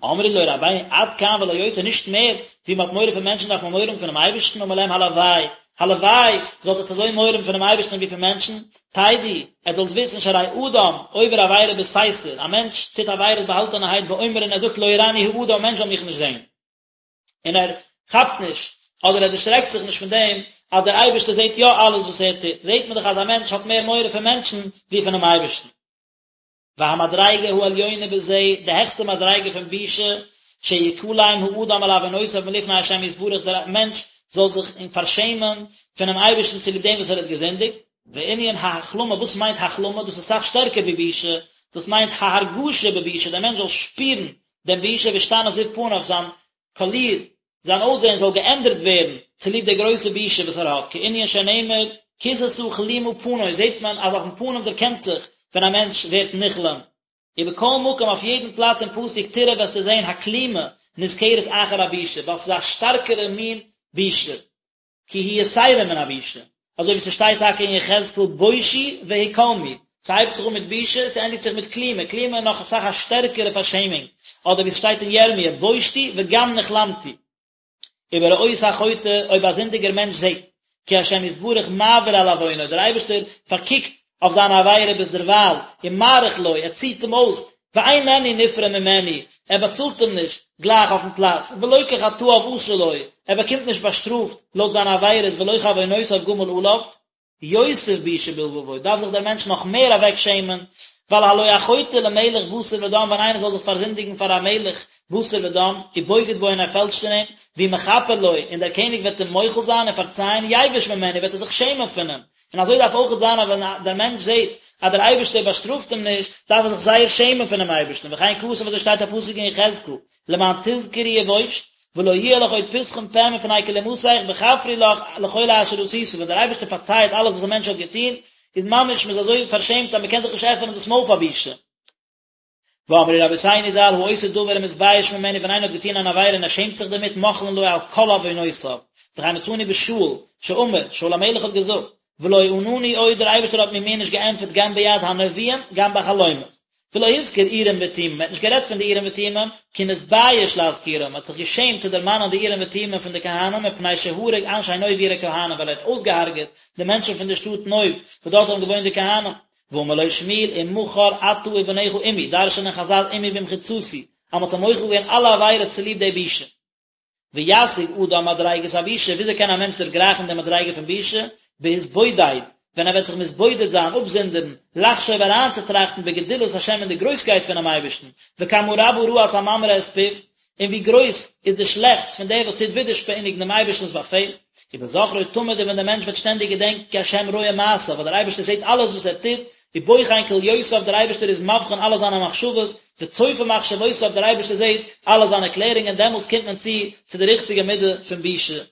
אמרו לו רבינו עד כאן ולא יותר נישט מער ווי מען האט מורא פון מענטשן דארף מען מורא האבן פונעם אייבערשטן אמר להם הלוואי הלוואי זאלט עטס אזוי מורא האבן פונעם אייבערשטן ווי פון מענטשן תדעו עטס זאלטס וויסן שהרי אדם עובר עבירה בסתר א מענטש טוט עבירות באהאלטענערהייט ואומר און ער זאגט לא יראני האדם א מענטש זאל מיך נישט זען און ער כאפט נישט אדער ער דערשרעקט זיך נישט פון דעם אז דער אייבערשטער זעט יא אלעס וואס ער טוט זעט מען דאך אז א מענטש האט מער מורא פון מענטשן ווי פונעם אייבערשטן. והמדריגה העליונה בזה, די העכסטע מדריגה פון בושה, שיכלם האדם על עוונותיו מלפני השם יתברך, דער מענטש זאל זיך פארשעמען פונעם אייבערשטן צוליב דעם וואס ער האט געזינדיגט, וענין ההכלמה, וואס מיינט הכלמה? דאס איז אסאך שטערקער ווי בושה, דאס מיינט ההרגשה בבושה, דער מענטש זאל שפירן דעם בושה וישתנה זיו פניו, זיין קאליר, זיין אויסזען זאל געענדערט ווערן צוליב די גרויסע בושה וואס ער האט, כענין שנאמר, כסתה כלימה פני, זעט מען אז אויפן פנים דערקענט זיך ווען א מענטש ווערט נכלם. ובכל מקום אויף יעדן פלאץ אין פסוק תראה וועסטו זען הכלימה נזכרת אחר הבושה, ווייל ס'איז א שטארקערע מין בושה, כי היא יתירה מן הבושה, אזוי ווי ס'שטייט טאקע אין יחזקאל בושו והכלמו, ס'הייבט זיך אן מיט בושה און ס'ענדיגט זיך מיט כלימה, כלימה איז נאך אסאך א שטערקערע פארשעמונג, אדער ווי ס'שטייט אין ירמיה בושתי וגם נכלמתי. ובראות החוטא, אויב א זינדיגער מענטש זעט, כי השם יתברך מעביר על עוונו, דער אייבערשטער פארקוקט אויף זיין עבירה ביז דערווייל, ומאריך לו, ער ציט אים אויס, ואיננו נפרע ממנו, ער באצאלט אים נישט גלייך אויפן פלאץ, ולא כחטאיו עשה לו, ער באקומט נישט באשטראפט לויט זיינע עבירות ולא כעוונותיו גמל עליו. יוסיף בושה בלבבו, דארף זיך דער מענטש נאך מער אוועק שעמען, ווייל הלא החוטא למלך בשר ודם, ווען איינער זאל זיך פארזינדיגן פאר א מלך בשר ודם, ובוגד בו און ער פעלשט אין אים, והוא מכפר לו, און דער קעניג וועט אים מוחל זיין און פארצייען, יבוש ממנו, וועט ער זיך שעמען פון אים. און אזוי דארף אויכעט זיין אז ווען דער מענטש זעט אז דער אייבערשטער באשטראפט אים נישט, דארף ער זיך זייער שעמען פונעם אייבערשטן, וכן כתוב אזוי שטייט א פסוק אין יחזקאל, למען תזכרי ובושת, ולא יהיה לך עוד פתחון פה מפני כלמתך בכפרי לך לכל אשר עשית, ווען דער אייבערשטער פארצייעט אלעס וואס א מענטש האט געטון, איז ממש מען איז אזוי פארשעמט אז מען קען זיך נישט עפענען דאס מויל פאר בושה. ואמרו רבותינו ז"ל העושה דבר ומתבייש ממנו ווען איינער האט געטון אן עבירה און ער שעמט זיך דערמיט מוחלין לו על כל עוונותיו, וכן מצינו בשאול שאמר, שאול המלך האט געזאגט, ולא ענני עוד דער אייבערשטער האט מיר מער נישט געענטפערט גם ביד הנביאים גם בחלומות, ולא הזכיר אורים ותומים, מען האט נישט גערעדט פון די אורים ותומים, כי נתבייש להזכירם, מען האט זיך געשעמט צו דערמאנען די אורים ותומים פון די כהנים מפני שהרג אנשי נוב עיר הכהנים ווייל ער האט אויסגעהארגעט די מענטשן פון די שטאט נוב וואס דארט האבן געוואוינט די כהנים. ואמר לו שמואל ומחר אתה ובניך עמי, דרש'נען חזל עמי במחיצתי, אז מען האט אים מוחל געווען אלע עבירות צוליב די בושה. וישיג אדם מדריגת הבושה, וויאזוי קען א מענטש דערגרייכן די מדריגה פון בושה? בהתבודד, ווען ער וועט זיך מתבודד זיין, אפזונדערן, לחשוב אריינצוטראכטן בגדולת השם אין די גרויסקייט פונעם אייבערשטן, וכמה רבה רעת הממרה את פיו, און ווי גרויס איז די שלעכטס פון דער וואס טוט ווידערשפעניגן דעם אייבערשטנ'ס באפעל, ובזכרו תמיד און ווען דער מענטש וועט שטענדיג געדענקען כי השם רואה מעשיו, ווייל דער אייבערשטער זעט אלעס וואס ער טוט, ובוחן כליותיו דער אייבערשטער איז מבחין אלע זיינע מחשבות, וצופה מחשבותיו דער אייבערשטער זעט אלע זיינע קלערונגען, דעמאלטס קומט מען צו צו די ריכטיגע מידה פון בושה.